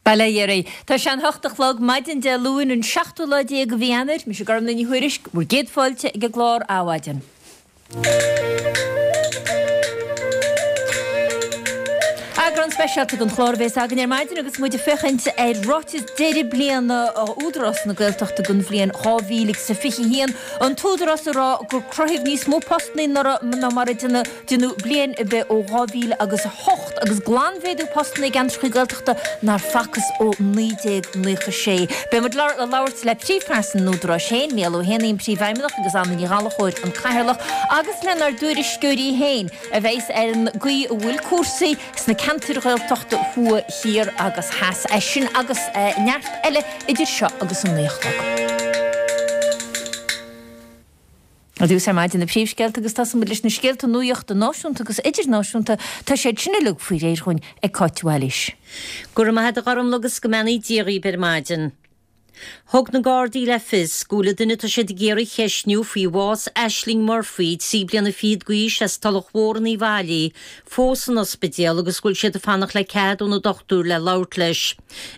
Bail ó Dhia oraibh. Tá sé an hocht a chlog, maidin Dé Luain, an seachtú lá déag de mhí Eanáir. Mise Gormlaith Ní Thuairisg, bhur gcéad fáilte ag an gclár Adhmhaidin. Eagrán speisialta den chlár a bhéas againn ar maidin agus muid ag féachaint ar ráiteas deireadh bliana Údarás na Gaeltachta don bhliain 2021. An tÚdarás ag rá gur cruthaíodh níos mó postanna anuraidh ná mar a deineadh bliain ar bith ó 2000 agus 8 agus glanmhéadú postanna i gceantracha Gaeltachta nár facthas ó 1996. Beidh muid ag labhairt le príomhphearsan an Údaráis féin, Mícheál Ó hÉanaí an Príomhfheidhmeannach agus Anna Ní Ghallchóir an Cathaoirleach agus lenár dtuairisceoirí féin a bheas ar an gcaoi a bhfuil cúrsaí sna ceantair Ghaeltachta thuaidh, thiar agus theas. É sin agus neart eile idir seo agus an 9 a chlog. Ar dtús ar maidin na príomhscéalta agus tosóidh muid leis na scéalta nuachta náisiúnta agus idirnáisiúnta. Tá siad sin uilig faoi réir dhúinn ag Cáit de Bhailís. Go raibh maith agat a Ghormlaith agus go mbeannaí Dia dhaoibh ar maidin. Thug na Gardaí le fios go bhfuil an duine atá siad ag iarraidh a cheistniú faoi bhás Ashling Murphy, 13 bliana fichead d'aois as Tulach Mhór in Uíbh Fhailí, fós san ospidéal agus go bhfuil siad ag fanacht le cead ó na dochtúir le labhairt leis.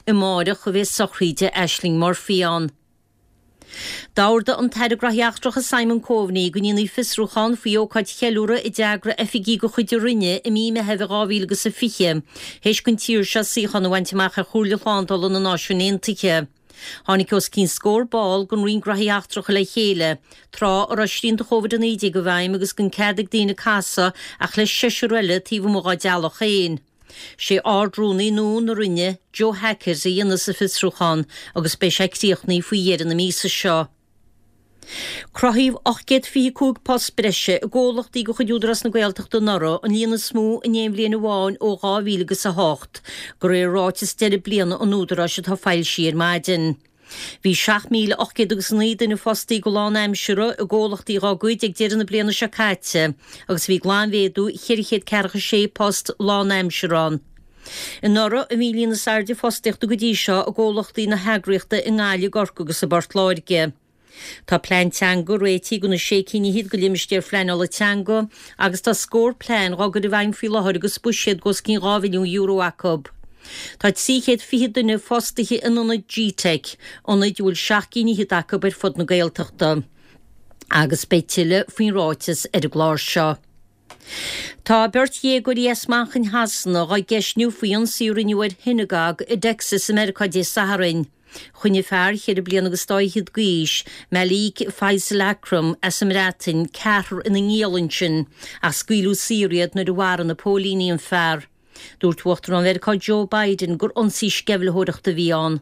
Amáireach a bheidh sochraíde Ashling Murphy ann. D'ordaigh an tAire Gnóthaí Eachtracha Simon Coveney go ndéanfaí fiosrúchán faoi ócáid cheiliúrtha a d'eagraigh oifigigh de chuid a Roinne i mí Meithimh 2020 théis don tír seo suíochán a bhaint amach ar Chomhairle Shlándála na Náisiún Aontaithe. Tháinig os cionn scór ball den Roinn Gnóthaí Eachtracha le chéile tráth a raibh srianta Covid-19 i bhfeidhm agus gan cead ag daoine casadh ach le seisear eile taobh amuigh dá dteaghlach féin. Sé Ard-Rúnaí nua na Roinne, Joe Hackett, a dhéanfas an fiosrúchán agus beidh sé críochnaithe faoi dheireadh na míosa seo. Cruthaíodh 825 post breise i gcomhlachtaí de chuid Údarás na Gaeltachta anuraidh, an líon is mó in aon bhliain amháin ó 2008, de réir ráiteas deireadh bliana an Údaráis atá foilsithe ar maidin. Bhí 7,800 agus 9 duine fostaithe go lánaimseartha i gcomhlachtaí dhá gcuid ag deireadh na bliana seo caite agus bhí glanmhéadú 446 post lánaimseartha ann. Anuraidh a bhí an líon is airde fostaíochta go dtí seo i gcomhlachtaí na heagraíochta i nGaillimh, i gCorcaigh agus i bPort Láirge. Tá plean teanga réitithe do na sé cinn fhichead de limistéir phleanála teanga agus tá scór plean dhá gcur i bhfeidhm faoi láthair agus buiséad d'os cionn €2 mhilliún acu. Tá 320 duine fostaithe in ionaid GTeic, ionaid a bhfuil seacht gcinn fhichead acu ar fud na Gaeltachta. Agus beidh tuilleadh faoin ráiteas ar an gclár seo. Tá beirt dhéagóirí as Manchain Shasana dhá gceistniú faoi ionsaí a rinneadh ar shionagóg i dTexas i Meiriceá Dé Sathairn. Choinnigh fear cheithre bliana agus dá fhichead d'aois, Malik Faisal Akram, as an mBreatain, ceathrar ina ngiall ansin, ach scaoileadh saor iad nuair a mharaigh na póilíní an fear. Dúirt Uachtarán Mheiriceá Joe Biden gur ionsaí sceimhlitheoireachta a bhí ann.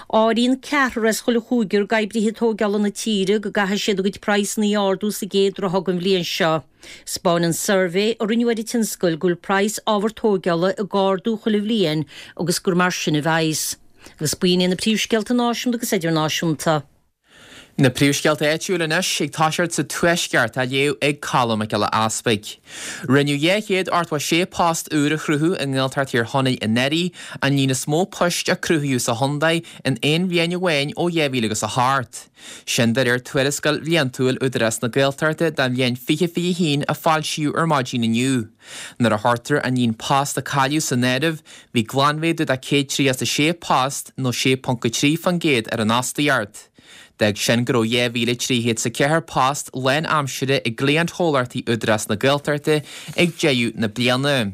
Áiríonn ceathrar as chuile chúigear d'oibrithe tóigeála na tíre go gcaithfidh siad a gcuid praghsanna a ardú sa gcéad ráithe den bhliain seo. 'Spáineann suirbhé a rinneadh ar an tionscal go bhfuil praghas ábhar tóigeála ag ardú chuile bhliain agus gur mar sin a bheidhs. Agus b'in iad na príomhscéalta náisiúnta agus idirnáisiúnta. Na príomhscéalta áitiúil anois, ag toiseacht sa Tuaisceart, á léamh ag Colm Mac Giolla Easpaig. Rinneadh 286 post úr a chruthú i nGaeltacht Thír Chonaill anuraidh, an líon is mó poist a cruthaíodh sa chontae in aon bhliain amháin ó 2008. Sin de réir tuarascáil bhliantúil Údarás na Gaeltachta don bhliain 2021 a foilsíodh ar maidin inniu. Nuair a chuirtear an líon post a cailleadh san áireamh, bhí glanmhéadú de 136 post, nó 6.3%, ar an fhostaíocht. D'fhág sin go raibh 2,304 post lánaimsire i gcliantchomhlachtaí Údarás na Gaeltachta ag deireadh na bliana.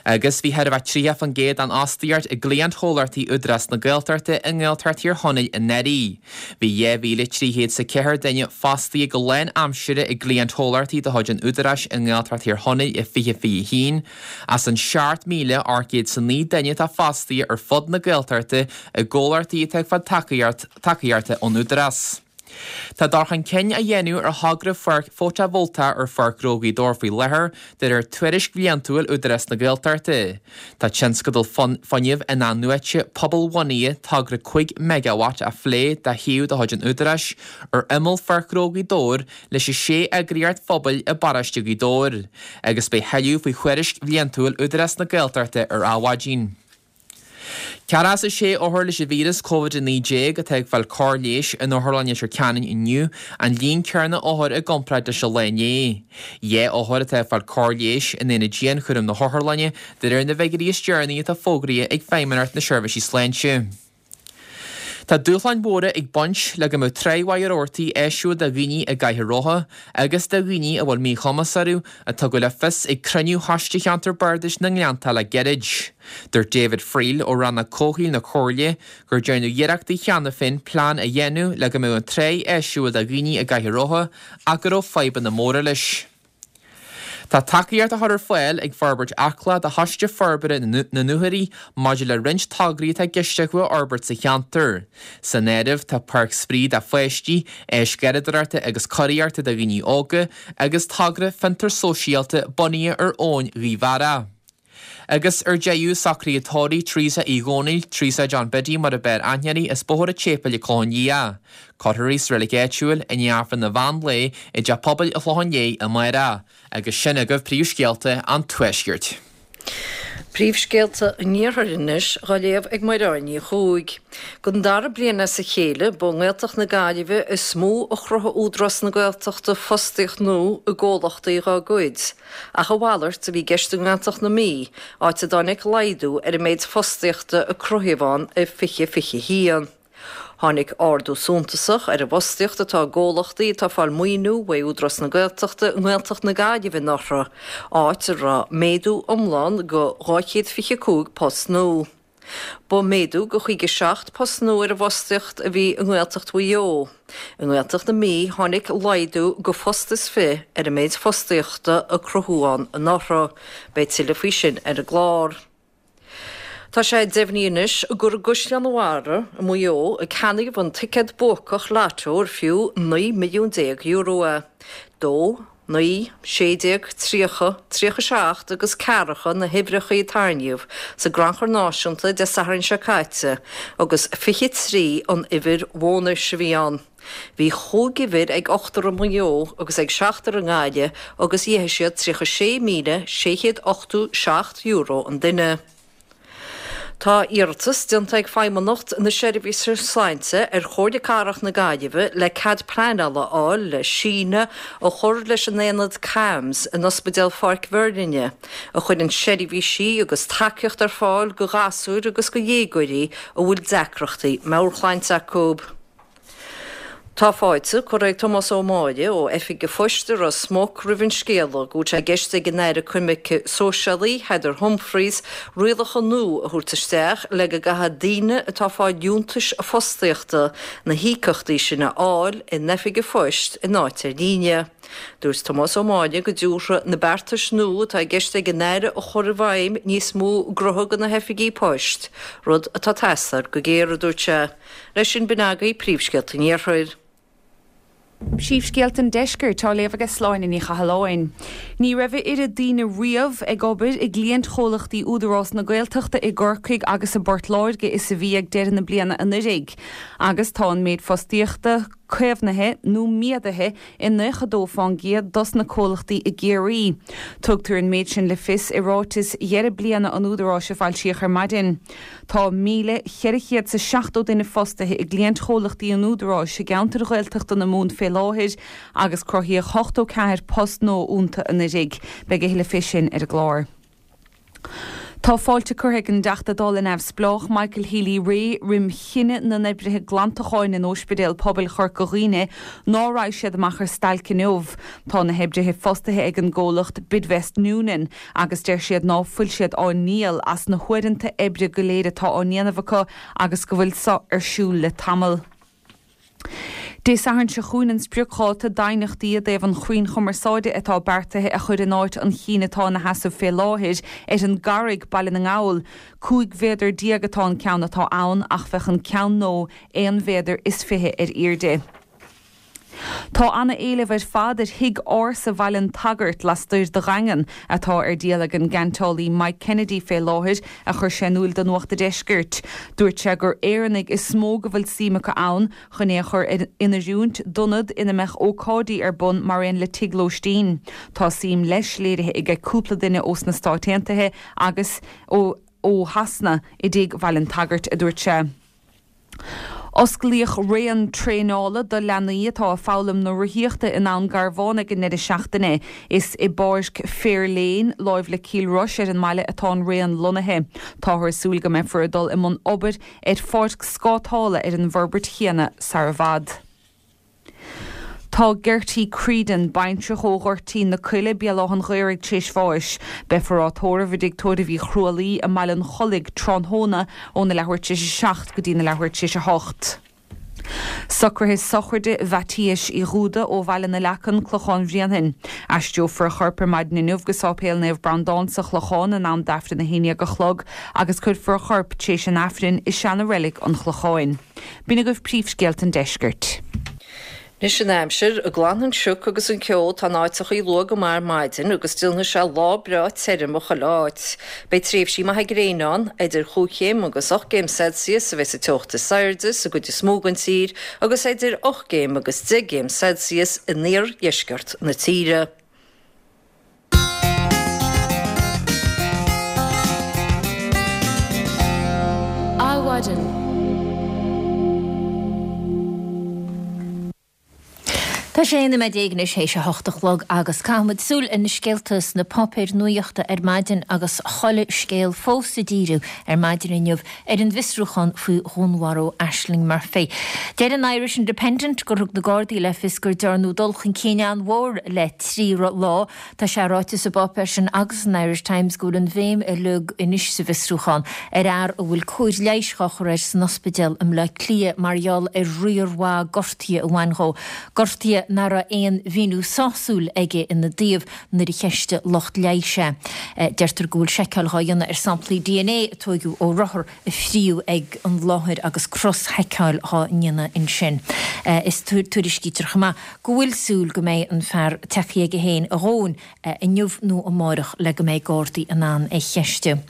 Agus bhí chóir a bheith 30% den fhostaíocht i gcliantchomhlachtaí Údarás na Gaeltachta i nGaeltacht Thír Chonaill anuraidh. Bhí 2,304 duine fostaithe go lánaimsire i gcliantchomhlachtaí de chuid an Údaráis i nGaeltacht Thír Chonaill i 2021, As an 7,809 duine atá fostaithe ar fud na Gaeltachta i gcomhlachtaí atá ag fáil tacaíochta ón Údarás. Tá dul chun cinn á dhéanamh ar thogra pháirc fótavoltach ar Pháirc Ghnó Ghaoth Dobhair faoi láthair, de réir tuairisc bhliantúil Údarás na Gaeltachta. Tá tionscadal fuinnimh in-athnuaite pobalbhunaithe togra 5 meigeawatt á phlé do shuíomh de chuid an Údaráis ar imeall Pháirc Ghnó Ghaoth Dobhair leis an sé eagraíocht phobail i bparóiste Ghaoth Dobhair, agus beidh thuilleadh faoi thuairisc bhliantúil Údarás na Gaeltachta ar Adhmhaidin. 46 othar leis an víreas Covid-19 atá ag fáil cóir leighis in Otharlann Leitir Ceanainn inniu, an líon céanna othar i gcomparáid leis an lá inné. 2 othar atá ag fáil cóir leighis in aonad dianchúraim na hotharlainne, de réir na bhfigiúirí is deireanaí atá fógraithe ag Feidhmeannacht na Seirbhísí Sláinte. Tá dúshláin mhóra ag baint le go mbeadh trá Mhachaire Rabhartaigh áisiúil do dhaoine i gcathaoir rotha agus do dhaoine a bhfuil míchumas orthu, a tugadh le fios ag cruinniú Choiste Cheantar Bardais na nGleannta le gairid. Dúirt David Friel ó Rannóg Comhshaoil na Comhairle gur déanadh iarrachtaí cheana féin plean a dhéanamh le go mbeadh an trá áisiúil do dhaoine i gcathaoir rotha ach go raibh fadhbanna móra leis. Tá tacaíocht á chur ar fáil ag Forbairt Acla do Choiste Forbartha na nDúchoraidh maidir le roinnt tograí atá i gceist acu a fhorbairt sa cheantar. San áireamh tá páirc spraoi do pháistí, áis gharradóireachta agus curaíochta do dhaoine óga agus togra fiontar sóisialta bunaithe ar abhainn Ghaoth Bheara. Agus ar deireadh, socruithe tórraimh Teresa Uí Dhónaill, Teresa John Biddy mar ab fhearr aithne uirthi, as Bóthar an tSéipéil an Clochán Liath. Cuirfear í sa reilig áitiúil i ndiaidh Aifreann an mheán lae i dTeach Pobail an Chlocháin Léith amárach. Agus sin agaibh príomhscéalta an Tuaiscirt. Príomhscéalta an Iarthair anois dhá léamh ag Mairéad Ní Chuaig. Don dara bliain as a chéile, ba i nGaeltacht na Gaillimhe is mó a chruthaigh Údarás na Gaeltachta fostaíocht nua i gcomhlachtaí dá gcuid. Ach a mhalairt a bhí i gceist i nGaeltacht na Mí, áit a dtáinig laghdú ar an méid fostaíochta a cruthaíodh ann i 2021. Tháinig ardú suntasach ar an bhfostaíocht atá i gcomhlachtaí atá ag fáil maoiniú uaidh Údarás na Gaeltachta i nGaeltacht na Gaillimhe anuraidh, áit a raibh méadú iomlán de 225 post nua. Ba méadú de 57 post nua ar an bhfostaíocht a bhí i nGaeltacht Mhaigh Eo. I nGaeltacht na Mí tháinig laghdú de phost is fi ar an méid fostaíochta a cruthaíodh ann anuraidh. Beidh tuilleadh faoi sin ar an gclár. Tá sé deimhnithe anois gur i gCaisleán an Bharraigh i Maigh Eo a ceannaíodh an ticéad buacach Lotto ar fiú €19 milliún é. 2, 9, 16, 30, 37 agus ceathracha na huimhreacha a tarraingíodh sa gCrannchur Náisiúnta Dé Sathairn seo caite agus 23 an uimhir bhónais a bhí ann. Bhí chúig uimhir ag ochtar i Maigh Eo agus ag seachtar i nGaillimh agus gheibh siad €36,687 an duine. Tá iarratas déanta ag Feidhmeannacht na Seirbhíse Sláinte ar Chomhairle Cathrach na Gaillimhe le cead pleanála a fháil le síneadh a chur leis an aonad CAMHS in Ospidéal Pháirc Mheirlinne, a chuireann seirbhísí agus tacaíocht ar fáil do ghasúir agus do dhéagóirí a bhfuil deacrachtaí meabhairshláinte acu. Tá fáilte curtha ag Tomás Ó Máille ó Oifig an Phoist i Ros Muc roimh an scéala go bhfuil sé i gceist ag an Aire Coimirce Sóisialaí, Heather Humphreys, rialacha nua a thabhairt isteach le go gcaithfidh daoine atá ag fáil liúntais fostaíochta na híocaíochtaí sin a fháil in Oifig an Phoist in áit ar líne. Dúirt Tomás Ó Máille go dtabharfaidh na beartais nua atá i gceist ag an Aire a chur i bhfeidhm níos mó gnótha do na hoifigí poist, rud atá ag teastáil go géar, a dúirt sé. Leis sin, b'in agaibh príomhscéalta an Iarthair. Príomhscéalta an Deiscirt á léamh aige Sláine Ní Chathalláin. Ní raibh a oiread daoine riamh ag obair i gcliaint-chomhlachtaí Údarás na Gaeltachta i gCorcaigh agus i bPort Láirge is a bhí ag deireadh na bliana anuiridh. Agus tá an méid fostaíochta caomhnaithe nó méadaithe i 92% dos na comhlachtaí i gCiarraí. Tugtar an méid sin le fios i ráiteas dheireadh bliana an Údaráis a foilsíodh ar maidin. Tá 1,470 duine fostaithe i gcliaint-chomhlachtaí an Údaráis i gceantair Ghaeltachta na Mumhan fé láthair agus cruthaíodh 84 post nua iontu anuiridh. Beidh a thuilleadh fé sin ar an gclár. Tá fáilte curtha ag an dTeachta Dála neamhspleách Michael Healy-Rae roim chinneadh na n-oibrithe glantacháin in Óispidéal Pobail Chorca Dhuibhne ná raghaidh siad amach ar stailc inniu. Tá na hoibrithe fostaithe ag an gcomhlacht Bidvest Noonan. agus deir siad ná fuil siad á ndíol as na huaireanta oibre go léir atá á ndéanamh acu agus go bhfuil so ar siúl le tamall. Dé Sathairn seo chugainn an spriocdháta d'aighneachtaí i dtaobh an chrainn chumarsáide atá beartaithe a chur in áit an chinn atá ina sheasamh fé láthair ar an gCarraig, Baile na nGall. 15 mhéadar atá an ceann atá ann ach bheadh an ceann nua aon mhéadar is 20 ar aoirde. Tá ana-éileamh ar fad ar thigh ársa Bhaile an tSagairt lastoir de Dhaingean, atá ar díol ag an gceantálaí Mike Kennedy fé láthair, a chuir sé in iúil do Nuacht a' Deiscirt. Dúirt sé gur Éireannaigh is mó go bhfuil suim acu ann chun é a chur in oiriúint d'ionad ina mbeadh ócáidí ar bun mar aon le tigh lóistín. Tá suim leis léirithe aige cúpla duine ós na Stáit Aontaithe agus ó. ó Shasana i dTigh Bhaile an tSagairt, a dúirt sé. Osclaíodh raon traenála do leanaí atá ag foghlaim na rothaíochta in Abhainn Garbhán ag an ndeireadh seachtaine. Is i bPáirc Fair Lane, láimh le Cill Rois ar an mbaile atá an raon lonnaithe. Táthar ag súil go mbeifear ag dul i mbun obair ar pháirc scátála ar an bhforbairt chéanna sar i bhfad. Tá Gertie Creedon, baintreach ó Ghoirtín na Coille, Béal Átha'n Ghaorthaidh tar éis bháis. Beifear á tórramh i dTigh Tórraimh Uí Chrualaoi i mBaile an Chollaigh tráthnóna óna leathuair tar éis a 7 go dtína leathuair tar éis a 8. Socruithe sochraide Mhaitiais Uí Dhúda ó Bhaile na Leacan, Clochán Bhréanainn. Aistreofar a chorp ar maidin inniu go Sáipéal Naomh Breandán sa Chlochán in am d'Aifreann a 11 a chlog agus cuirfear a chorp tar éis an Aifrinn i seana-reilig an Chlocháin. B'in agaibh príomhscéalta an deiscirt. Anois an aimsir, Glanfaidh an sioc agus an ceo atá in áiteachaí luath go maith ar maidin agus déanfaidh sé lá breá tirim i chuile áit. Beidh tréimhsí maithe gréine ann, idir chúig chéim agus ocht gcéim Celsius a bheidh sa teocht is airde sa gcuid is mó den tír agus idir ocht gcéim agus deich gcéim Celsius in iardheisceart na tíre. Adhmhaidin. Tá 16 nóiméad anois théis a hocht a chlog agus caithfimid súil ar na scéalta sna páipéir nuachta ar maidin agus chuile scéal fós ag díriú ar maidin inniu ar an bhfiosrúchán faoi dhúnmharú Ashling Murphy. Deir an Irish Independent gur thug na Gardaí le fios gur dearnadh dul chun cinn an-mhór le trí lá. Tá sé ráite sa bpáipéar sin agus san Irish Times go bhfuil an bhéim uilig anois sa bhfiosrúchán ar fhear a bhfuil cóir leighis dhá chur air san ospidéal i mBleá Cliath mar gheall ar riar mhaith gortuithe a bhain dhó, gortuithe nach raibh aon mhíniú sásúil aige ina dtaobh nuair a cheistigh lucht leighis é. Deirtear go bhfuil seiceáil dhá dhéanamh ar samplaí dna a tóigeadh ó rothar a fríodh ag an láthair agus cros-sheiceáil dhá ndéanamh ansin. Is tuairiscítear chomh maith go bhfuil súil go mbeidh an fear tagtha aige féin a dhóthain inniu nó amárach le go mbeidh Gardaí in ann é cheistiú.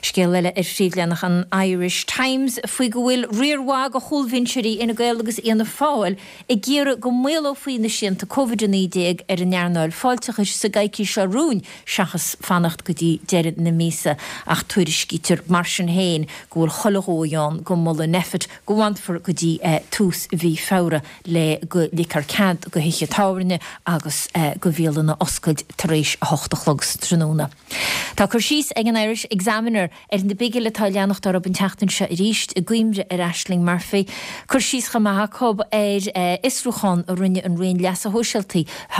Scéal eile ar phríomhleathanach an Irish Times faoi go bhfuil riar mhaith de chúlbhinseoirí Fhine Gael agus Fhianna Fáil ag iarraidh go maolófaí na srianta Covid-19 ar an earnáil fáilteachais sa gcoicís seo romhainn seachas fanacht go dtí deireadh na míosa ach tuairiscítear mar sin féin go bhfuil chuile dhóigh ann go molfaidh Nphet go bhfanfar go dtí tús mhí Feabhra le go ligfear cead do thithe tábhairne agus do bhialanna oscailt tar éis 8 a chlog sa tráthnóna. Tá cur síos ag an Irish Examiner ar na bigil atá ag leanacht orthu an tseachtain seo arís i gcuimhne ar Ashling Murphy. Cur síos chomh maith acu ar fhiosrúchán a rinne an Roinn Leasa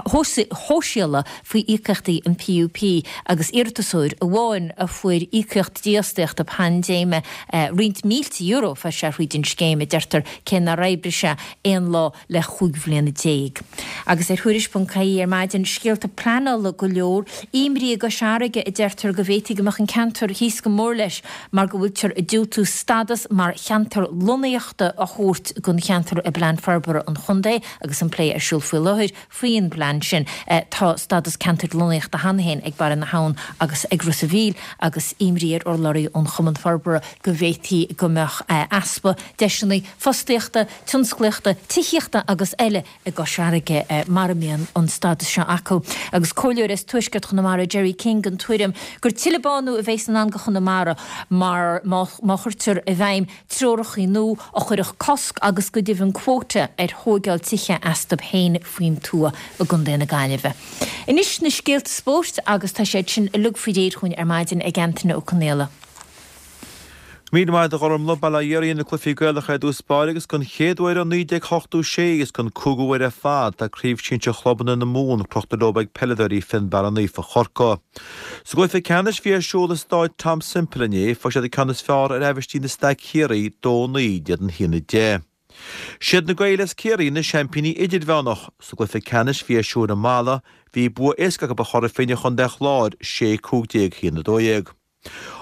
Shóisialaigh faoi íocaíochtaí an PUP agus iarratasóir amháin a fuair íocaíocht dífhostaíochta paindéime, roinnt mílte euro a fuair sé thríd an scéim, a deirtear, cé nár oibrigh sé aon lá le 15 bhliana. Agus ar Thuairisc.ie ar maidin, scéalta pleanála go leor, imní i gCois Fharraige a deirtear go bhféadfaidh go mbeadh an ceantar thíos go mór leis mar go bhfuiltear ag diúltú stadas mar cheantar lonnaíochta a thabhairt don cheantar i bPlean Forbartha an Chontae agus an plé ar siúl faoi láthair faoin bplean sin. Tá stádas ceantair lonnaíochta cheana féin ag Barra na hAbhann agus ag Ros a' Mhíl agus imní ar urlabhraí ón Chumann Forbartha go bhféadfaí go mbeadh easpa deiseanna fostaíochta, tionsclaíochta, tithíochta agus eile i gCois Fharraige mara mbíonn an stádas seo acu. Agus comhairleoir as tuaisceart Chonamara, Gerry King, den tuairim gur tuilleadh bánú a bheas i ndán do Chonamara mar má chuirtear i bhfeidhm treorachaí nua a chuirfeadh cosc agus go deimhin quota ar thóigeáil tithe astu féin faoin tuath i gContae na Gaillimhe. Anois na scéalta spóirt agus tá siad sin uilig faoi réir chugainn ar maidin ag Antaine Ó Conaola. Míle maith agat a Ghormlaith, Bail ó Dhia oraibh na cluichí Gaelacha i dtús báire agus don chéad uair ó 1986 agus don cúigiú huair ar fad tá Craobh Sinsir Chlubanna na Mumhan crochta leo ag peileadóirí Fionnbarra Naofa Chorcaí. Sa gcluiche ceannais a bhí ar siúl i Stáid Tom Semple inné fuair siad an ceann is fearr ar Aibhistín na Staic Chiarraí 2 9 in éadan 1 10. Siad na Gaeil as Ciarraí na seaimpíní idirmheánach. Sa gcluiche ceannais a bhí ar siúl i Mala bhí bua éasca acu ar Chora Finne Chontae an Chláir 6 15 1 12.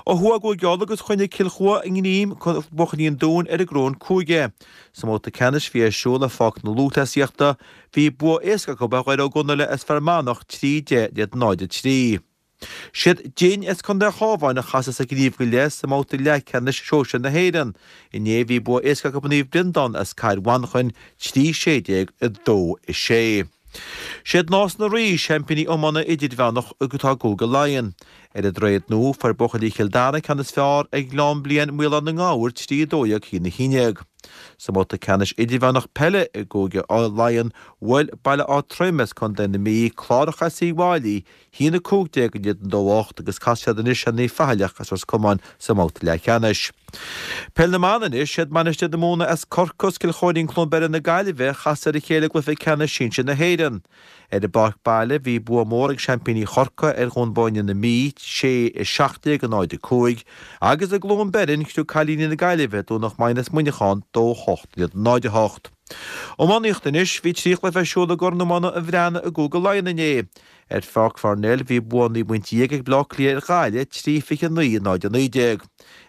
Ó thuaidh i gCúige Uladh agus choinnigh Cill Chua a ngreim buachaillí an Dúin ar an gcoróin cúige. Sa mbabhta ceannais a bhí ar siúl i Pháirc na Lúthchleasaíochta, bhí bua éasca acu ar Dhoire Ó gConaile as Fear Manach 3 10 in éadan 0 3. Siad Dinn as Contae an Chabháin a chasfas ar Ghníomh go Leith sa mbabhta leathcheannais sóisir na hÉireann. Inné bhí bua éasca acu ar Naomh Breandán as Cathair Mhanchain 3 16 2 6. Siad Nás na Rí, seaimpíní iomána idirmheánach atá i gCúige Laighean. Ar an Droichead Nua, fuair buachaillí Chill Dara an ceann is fearr ar Ghleann Bliain Maolán na nGabhar 3 12 1 11. Sa mbabhta ceannais idirmheánach peile i gCúige Laighean, bhuail Baile Átha Troim as Contae na Mí, Clárach as Uíbh Fhailí, 1 15 in éadan 2 8 agus casfaidh siad anois ar Naomh Faithleach as Ros Comáin sa mbabhta leathcheannais. Peil na mBan anois, siad Mainistir na Móna as Corcaigh agus Cill Chóirín Cluain Beirre na Gaillimhe a chas ar a chéile i gcluiche ceannais sinsir na hÉireann. Ar a bpáirc baile bhí bua mór ag seaimpíní Chorcaí ar Dhún Bóinne na Mí, 6 17 0 5, agus i gCluain Beirn chriog cailíní na Gaillimhe Domhnach Maighean as Muineachán 2 8 in éadan 0 8. Iománaíocht anois, bhí 3 chluiche ar siúl i gCorn Iomána an Bhreathnaigh i gCúige Laighean inné. Ar Pháirc Pharnell bhí bua 19 bpointe ag Bleá Cliath ar Ghaillimh, 3 29 0 19.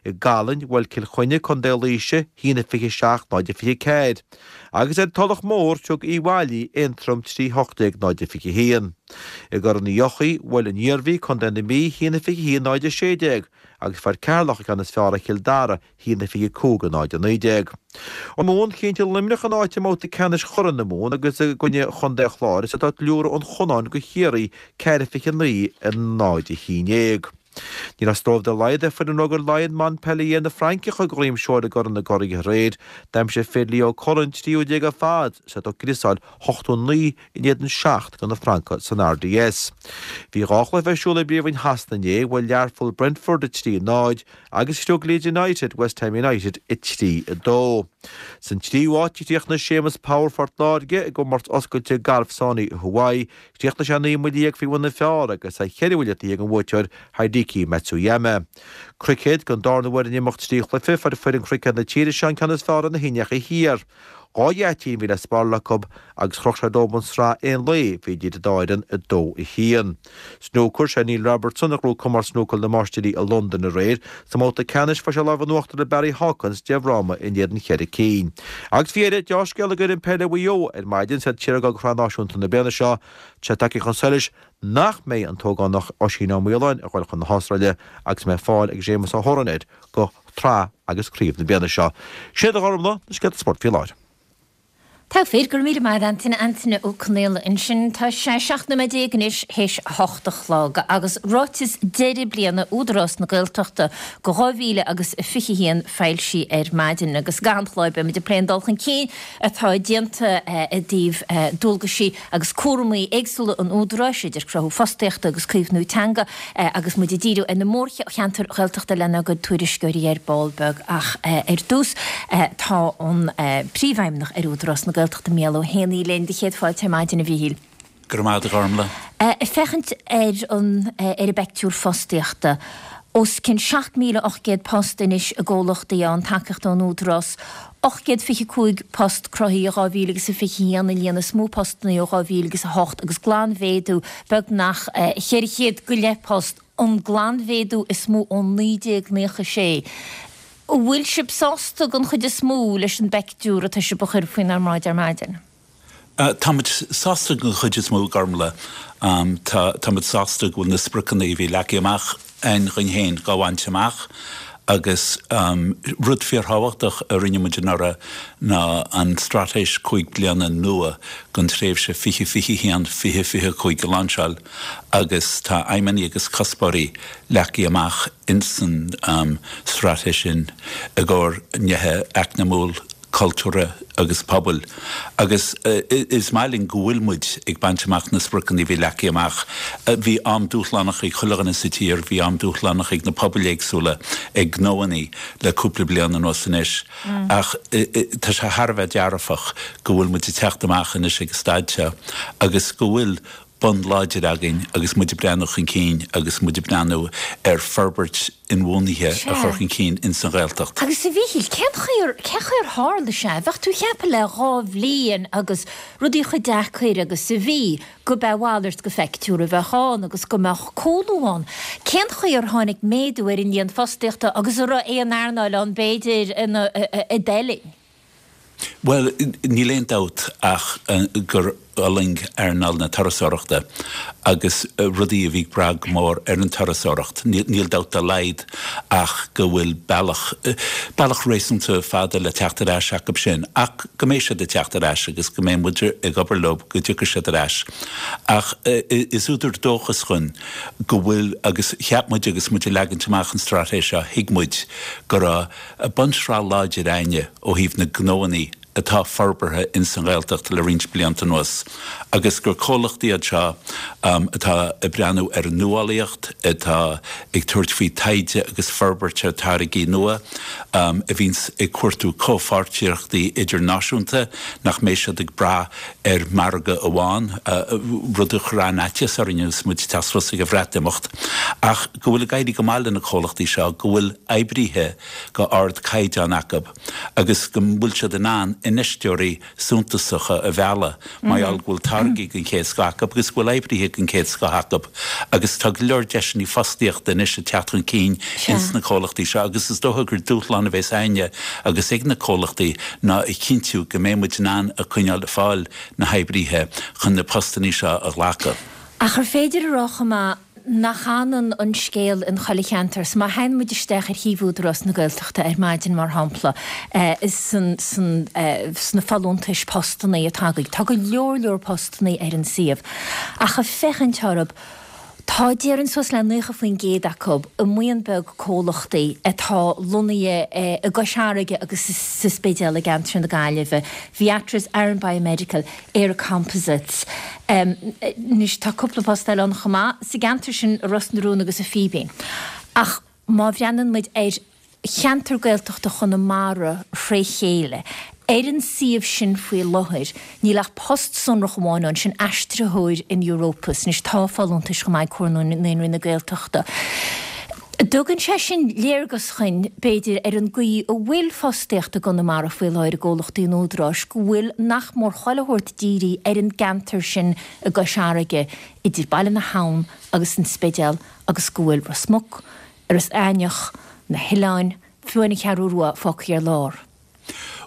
I gCallainn, bhuail Cill Chainnigh Contae Laoise, 1 27 0 24. Agus ar an Tulach Mhór, thug Uíbh Fhailí Aontroim 3 18 0 21. I gCorn Uí Eochaidh, bhuail an Iarmhí Contae na Mí 1 21 0 16 agus fuair Ceatharlach an ceann is fearr ar Chill Dara, 1 25 0 19. Mumhan, Chinntigh Luimneach a n-áit i mbabhta ceannais Churaidh na Mumhan agus i gcoinne Chontae an Chláir is iad ag liúradh an Chonáin do Chiarraí 4 29 0 11. Ní raibh stró dá laghad ar foireann Rugair Laighean Montpellier na Fraince a chur de dhroim seoil i gCorn na gCuraidh aréir. D'aimsigh fir Leo Cullen 13ú ar fad is iad ag criosáil 89 in éadan 7 do na Francaigh san RDS. Bhí dhá chluiche ar siúl i bPríomhroinn Shasana inné, bhuail Learpholl Brentford 3 0 agus chriog Leeds United West Ham United 3 2. San tríú háit a chríochnaigh Séamus Power Phort Láirge i gcomórtas oscailte gailf Sony i Hawaii. Chríochnaigh sé 19 mbuille faoi bhun na fearr agus é cheithre bhuille taobh thiar den bhuaiteoir Hideki Matsuyama. Cruicéad, Don darna huair in imeacht trí chluiche, fuair foireann cruicéad na tíre seo an ceann is fearr ar na hIndiacha Thiar. Dhá gheaitín a bhí le spáráil acu agus chroch sé dóibh an tsraith aon lae a bhí idir an dá fhoireann, 2, 1. Snúcar, Sé Neil Robertson a ghnóthaigh Comórtas Snúcair na Máistirí i Londain aréir. Sa mbabhta ceannais fuair sé lámh in uachtar ar Barry Hawkins de fhráma in éadan cheithre cinn. Agus faoi dheireadh, deá-scéala d'fhoireann peile Mhaigh Eo ar maidin is iad ag dul do Shraith Náisiúnta na bliana seo. Tá sé tagtha chun solais nach mbeidh an t-ógánach Oisín Ó Maoláin ag dul chun na hAstráile agus go mbeidh fáil ag Séamus Ó hOdhráin air do shraith agus craobh na bliana seo. Sin iad a Ghormfhlaith, na scéalta spóirt faoi láthair. Togha fir, go raibh míle maith agat Antaine, Antaine Ó Conaola ansin. Tá sé 17 nóiméad anois théis a hocht a chlog agus ráiteas deireadh bliana Údarás na Gaeltachta go 2000 agus 21 foilsithe ar maidin agus i gcaitheamh an chláir beidh muid ag plé an dul chun cinn atá déanta i dtaobh dualgaisí agus cúramaí éagsúla an Údaráis, idir cruthú fostaíochta agus caomhnú teanga, agus muid ag díriú ar na mórcheantair Ghaeltachta lenár gcuid tuairisceoirí ar ball beag. Ach ar dtús, tá an Príomhfheidhmeannach ar Údarás na Gaeltachta, Mícheál Ó hÉanaí, linn. Do chéad fáilte ar maidin, a Mhíchíl. Go raibh maith agat, a Ghormfhlaith. Ag féachaint ar an ar an bpeictiúr fostaíochta, os cionn 7,800 post anois i gcomhlachtaí a fhaigheann tacaíocht ón Údarás, 825 post cruthaithe i 2021, an líon is mó postanna ó 2008, agus glanmhéadú beagnach 400 go leith post, an glanmhéadú is mó ó 1996. An bhfuil sibh sásta den chuid is mó leis an bpeictiúr atá sibh a chur faoinár mbráid ar maidin? Tá muid sásta den chuid is mó, a Ghormfhlaith. Tá tá muid sásta go bhfuil na spriocanna a bhí leagtha amach againn dhuinn féin dhá bhaint amach agus rud fíorthábhachtach a rinne muid anuraidh ná an straitéis 5 bliana nua don tréimhse 2021, 2025 a lainseáil agus tá aidhmeanna agus cuspóirí leagtha amach insan straitéis sin i gcomhair nithe eacnamúil, cultúrtha agus pobail agus is maith linn go bhfuil muid ag baint amach na spriocanna a bhí leagtha amach. Bhí am dúshlánach ag chuile dhuine sa tír, bhí am dúshlánach ag na pobail éagsúla, ag gnóannaí le cúpla bliain anuas anois ach tá sé thar a bheith dearfach go bhfuil muid ag teacht amach anois ag an staid seo agus go bhfuil bonn láidir againn agus muid ag breathnú chun cinn agus muid ag breathnú ar forbairt inbhuanaithe a chur chun cinn ins an Ghaeltacht. Agus a Mhíchíl, cén chaoi ar, cén chaoi ar tharla sé? Bheadh tú ag ceapadh le dhá bhliain agus rudaí chomh deacair agus a bhí, go b'é a mhalairt de phictiúr a bheadh ann agus go mbeadh cúlú ann. Cén chaoi ar tháinig méadú ar an líon fostaíochta agus an raibh aon earnáil ann b'fhéidir ina, a d'fheil? Bhuel, níl aon dabht ach gur fhulaing earnáil na turasóireachta agus rudaí a bhí ag brath go mór ar an turasóireacht. Níl dabht dá laghad ach go bhfuil bealach, bealach réasúnta fada le teacht ar ais acu sin ach go mbeidh siad ag teacht ar ais agus go mbeidh muid ag obair leo go dtiocfaidh siad ar ais. Ach is údar dóchais dhuinn go bhfuil, agus cheap muid agus muid ag leagaint amach an straitéis seo, thuig muid go raibh bunsraith láidir a'inne ó thaobh na gnóannaí atá forbartha ins an Ghaeltacht le roinnt blianta anuas agus gur comhlachtaí iad seo atá ag breathnú ar an nuálaíocht, atá ag tabhairt faoi taighde agus forbairt ar táirgí nua, a bhíonns ag cuartú comhpháirtíochtaí idirnáisiúnta, nach mbeidh siad ag brath ar margadh amháin, rud a chuir an-fhaitíos orainn agus muid ag teacht suas ag an Bhreatimeacht, ach go bhfuil ag éirí go maith le na comhlachtaí seo, go bhfuil oibrithe go ardchaighdeán acu agus go bhfuil siad in ann infheisteoirí suntasacha a mhealladh mar gheall go bhfuil táirgí den chéad scoth acu agus go bhfuil oibrithe den chéad scoth acu agus tá go leor deiseanna fostaíochta anois ag teacht chun cinn ins na comhlachtaí seo agus is dócha gur dúshlán a bheas a'inne agus ag na comhlachtaí ná a chinntiú go mbeidh muid in ann a coinneáil ag fáil na hoibrithe chun na postannaí seo a ghlacadh. Ach ar féidir a rá chomh maith nach ionann an scéal in chuile cheantar. So má théann muid isteach ar shuíomh Údarás na Gaeltachta ar maidin, mar shampla, sna folúntais postannaí atá agaibh, tá go leor leor postannaí ar an suíomh. Ach ag féachaint orthu, tá, déarfainn, suas le 90% acu i mbuíon beag comhlachtaí atá lonnaithe i gCois Fharraige agus sa Spidéal i gceantar na Gaillimhe, Viatris, Aran Biomedical, Éire Composites. Anois tá cúpla post eile ann chomh maith sa gceantar sin, i Ros na Rún agus i Fíbín. Ach má bhreathnaíonn muid ar cheantar Gaeltachta Chonamara thré chéile, ar an suíomh sin faoi láthair, níl ach post sonrach amháin ann, sin aistritheoir in Europus. Anois tá folúntais chomh maith ag Comhar Naíonraí na Gaeltachta. Tugann sé sin léargas dhuinn, b'fhéidir, ar an gcaoi a bhfuil fostaíocht i gConamara faoi láthair i gcomhlachtaí an Údaráis, go bhfuil nach mór chuile shórt dírithe ar an gceantar sin i gCois Fharraige, idir Baile na hAbhann agus an Spidéal agus go bhfuil Ros Muc, Iorras Aithneach, na hoileáin, fiú an Cheathrú Rua fágtha ar lár.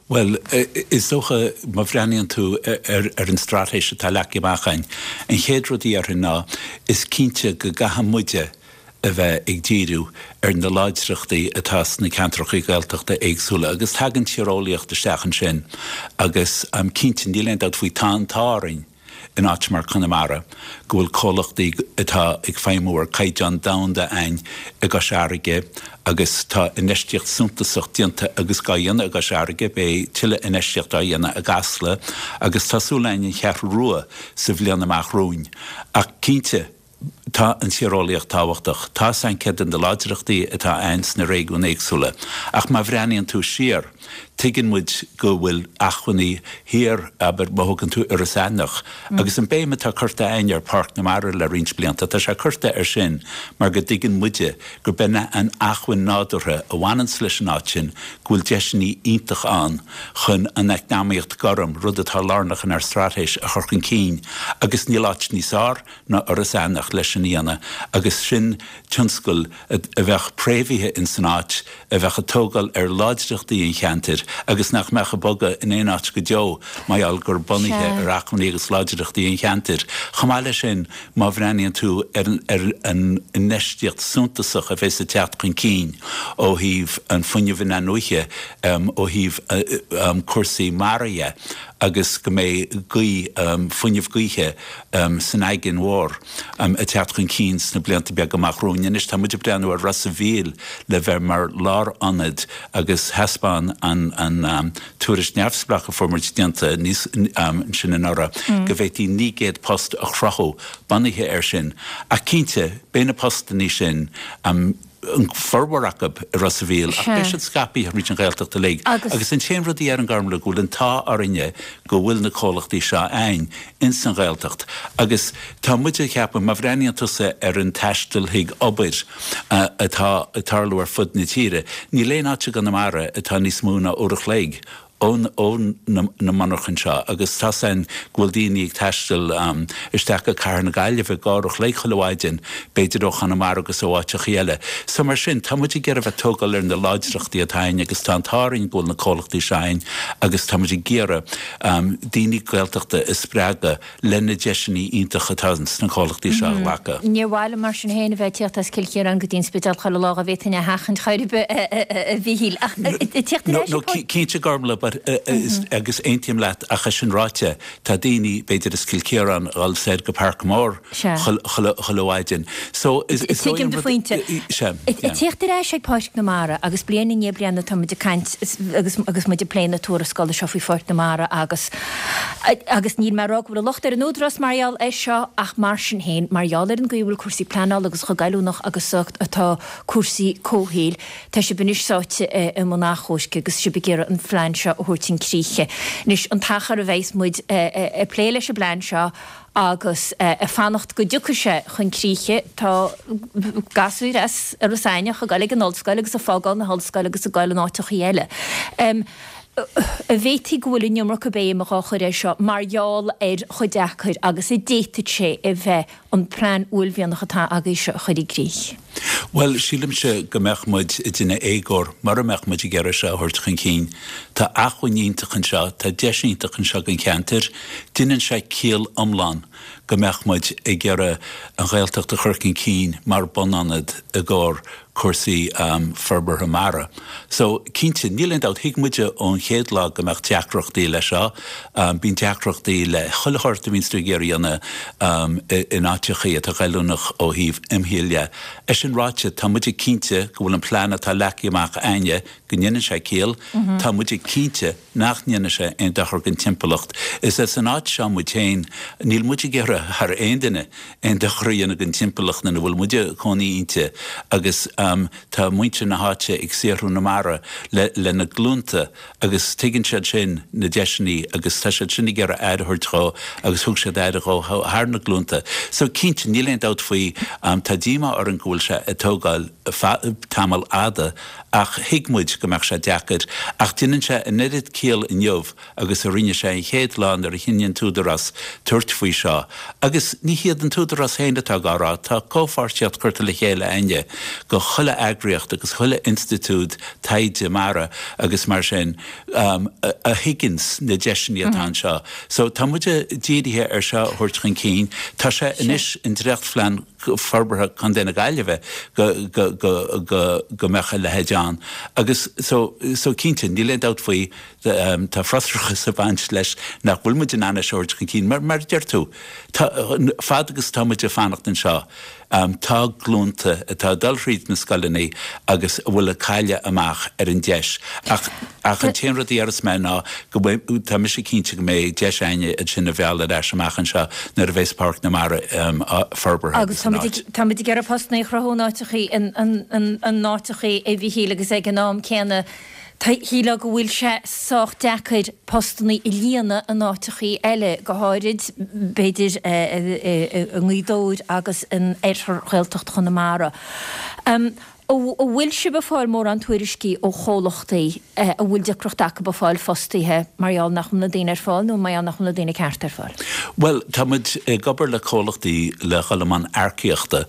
Bhuel, is dócha, má bhreathnaíonn tú ar an straitéis atá leagtha amach againn, an chéad rud a dhéarfainn ná, is cinnte go gcaithfidh muide a bheith ag díriú ar na láidreachtaí atá sna ceantracha Gaeltachta éagsúla agus tagann tíreolaíocht isteach ansin agus cinnte, níl aon dabht faoi, tá an t-ádh orainn, in áit mar Conamara, go bhfuil comhlachtaí atá ag feidhmiú ar caighdeán domhanda a'ainn i gCois Fharraige agus tá infheistíocht suntasach déanta agus dhá dhéanamh i gCois Fharraige, beidh tuilleadh infheistíocht á dhéanamh i gCasla agus tá súil a'ainn an Cheathrú Rua sa bhliain amach romhainn. Ach cinnte, Tá an tíreolaíocht tábhachtach. Tá 's a'ainn céard iad na láidreachtaí atá a'ainn sna réigiúin éagsúla. Ach má bhreathnaíonn tú siar, tuigeann muid go bhfuil acmhainní thiar, abair, má thógann tú Iorras Aithneach, agus an béim atá curtha a'ainn ar Pháirc na Mara le roinnt blianta, tá sé curtha air sin mar go dtuigeann muide gurb in an acmhainn nádúrtha a bhaineanns leis an áit sin, go bhfuil deiseanna iontach ann chun an eacnamaíocht gorm, rud atá lárnach inár straitéis, a chur chun cinn. Agus níl áit níos fearr ná Iorras Aithneach leis sin a dhéanamh agus sin tionscal a bheadh préamhaithe ins an áit, a bheadh ag tógáil ar láidreachtaí an cheantair agus nach mbeadh ag bogadh in aon áit go deo mar gheall gur bunaithe ar acmhainní agus láidreachtaí an cheantair. Chomh maith leis sin, má bhreathnaíonn tú ar an infheistíocht suntasach a bheas ag teacht chun cinn ó thaobh an fuinneamh in-athnuaithe, ó thaobh cúrsaí mara dhe agus go mbeidh gaoth, fuinneamh gaoithe, san aigéan mhór ag teacht chun cinn sna blianta beaga amach romhainn. Anois tá muid ag breathnú ar Ros a' Mhíl le bheith mar lárionad agus thaispeáin an tuairisc neamhspleách a fuair muid déanta níos ansin anuraidh go bhféadfaí 900 post a chruthú bunaithe air sin. Ach cinnte, beidh na postannaí sin, an formhór acu i Ros a' Mhíl ach beidh siad scaipthe thríd an Ghaeltacht uilig. Agus an t-aon rud a deirim Gormlaith go bhfuil an t-ádh orainne go bhfuil na comhlachtaí seo a'ainn ins an Ghaeltacht. Agus tá muid ag ceapadh, má bhreathnaíonn tusa ar an taisteal chuig obair atá ag tarlú ar fud na tíre, níl aon áit i gConamara atá níos mó ná uair a chloig. ó na monarchain seo agus tá's a'inn go bhfuil daoine ag taisteal isteach go Cathair na Gaillimhe i gcarr a chloig chuile mhaidin, b'fhéidir ó Chonamara agus ó áiteachaí eile. So mar sin, tá muid ag iarraidh bheith tógáil ar na láidreachtaí atá a'inn agus tá an t-ádh orainn go bhfuil na comhlachtaí seo a'inn agus tá muid ag iarraidh daoine Gaeltachta a spreagadh le na deiseanna iontacha atá sna comhlachtaí seo a ghlacadh. Níor mhaith liom mar sin féin a bheith ag tíocht as Cill Chiaráin go dtí an Spidéal chuile lá dá bhféadfainn é a sheachaint chor ar bith, a Mhíchíl. Ach ag tíocht ar ais No, cinnte Gormlaith, but agus aontaím leat ach é sin ráite, tá daoine, b'fhéidir as Cill Chiaráin, a dhul soir go Parkmore chuile mhaidin. So is dóigh Tuigim do phointe. Sea, Ag tíocht ar ais ag Páirc na Mara agus bliain i ndiaidh bliana tá muid ag caint agus muid ag plé na tuarascála seo faoi Pháirc na Mara agus Agus níl mé ag rá go bhfuil an locht ar an Údarás mar gheall air seo ach mar sin féin, mar gheall ar an gcaoi a bhfuil cúrsaí pleanála agus chomh goilliúnach agus atá cúrsaí comhshaoil, tá sibh anois sáite i mbun achomhairc agus sibh ag iarraidh an phlean seo a thabhairt chun críche. Anois, an t-achar a bheas muid ag plé leis an bplean seo agus ag fanacht go dtiocfaidh sé chun críche, tá gasúir as Iorras Aithneach ag dul ag an ollscoil agus ag fágáil na hollscoile agus ag dul in áiteachaí eile. An bhféadfaí go bhfuil an iomarca béim dhá chur air seo mar gheall ar chomh deacair agus a d'fhéadfadh sé a bheith an plean uaillmhianach atá agaibh seo a chur i gcrích? Bhuel, sílimse go mbeadh muid ag déanamh éagóir mura mbeadh muid ag iarraidh seo a thabhairt chun cinn. Tá acmhainn iontach anseo, tá deis iontach anseo don cheantar. Deineann sé ciall iomlán go mbeadh muid ag iarraidh an Ghaeltacht a chur chun cinn mar bunionad i gcomhair cúrsaí forbartha mara. So, cinnte, níl aon dabht, thuig muide ón chéad lá go mbeadh deacrachtaí leis seo. Bíonn deacrachtaí le chuile shórt a bhíonns tú ag iarraidh a dhéanamh in áiteachaí atá goilliúnach ó thaobh imshaoil dhe. É sin ráite, tá muide cinnte go bhfuil an plean atá leagtha amach a'inne, go ndéanann sé ciall. Tá muide cinnte nach ndéanfaidh sé aon dochar don timpeallacht. Is as an áit seo muid féin. Níl muid ag iarraidh thar aon duine aon dochar a dhéanamh don timpeallacht ina bhfuil muid ag cónaí inti agus tá muintir na háite ag saothrú na mara le le na glúnta agus tuigeann siad sin na deiseanna agus tá siad sin ag iarraidh aire a thabhairt dhó agus thug siad aire dhó thar na glúnta. So cinnte, níl aon dabht faoi, tá díomá orainn go bhfuil sé ag tógáil tamall fhada Ach thuig muid go mbeadh sé deacair. Ach déanann sé an oiread ciall inniu agus a rinne sé an chéad lá nuair a chinn an tÚdarás tabhairt faoi seo. Agus ní hiad an tÚdarás féin atá dhá rá, tá comhpháirtíocht curtha le chéile a'inne go chuile eagraíocht agus chuile institiúid taighde mara agus mar sin a thuigeanns na deiseanna atá anseo. So tá muide dírithe ar seo a thabhairt chun cinn. Tá sé anois i ndréachtphlean. Forbartha Contae na Gaillimhe go go go go go mbeadh a leithéid ann agus so so cinnte níl aon dabht faoi tá frustrachas ag baint leis nach bhfuil muid in ann é seo a thabhairt chun cinn mar mar a deir tú tá fad agus tá muid ag fanacht anseo tá glúnta atá ag dul thríd na scoileanna agus a bhfuil ag cailleadh amach ar an deis ach Ach an t-aon rud a déarfas mé ná go mbeidh, tá mise cinnte go mbeidh deis a'inne iad sin a mhealladh ar ais amach anseo nuair a bheas Páirc na Mara forbartha Agus tá muid ag, tá muid ag iarraidh postanna a chruthú in áiteachaí, in, in, in áiteachaí a Mhichíl agus ag an am céanna tá, shílfeá go bhfuil sé sách deacair postanna a líonadh in áiteachaí eile, go háirid b'fhéidir i nGaoth Dobhair agus in oirthear Ghaeltacht Chonamara. An bhfuil sibh ag fáil mórán tuairiscí ó chomhlachtaí a bhfuil deacracht acu ag fáil fostaithe mar gheall nach bhfuil na daoine ar fáil nó mar gheall nach bhfuil na daoine cearta ar fáil? Bhuel, tá muid ag obair le comhlachtaí le dhul i mbun earcaíochta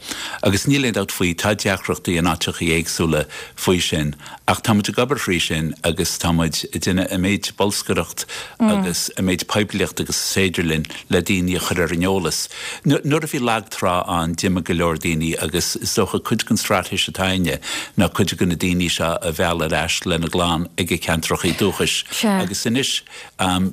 agus níl aon dabht faoi, tá deacrachtaí in áiteachaí éagsúla faoi sin ach tá muid ag obair thrí sin agus tá muid ag déanamh an méid bolscaireacht agus an méid poiblíocht agus is féidir linn le daoine a chur ar an eolas. Nuair a bhí lag trá ann d'imigh go leor daoine agus is dócha cuid den straitéis atá a'inne ná cuid de na daoine seo a mhealladh ar ais lena gclann ag a ceantrachaí dúchais agus anois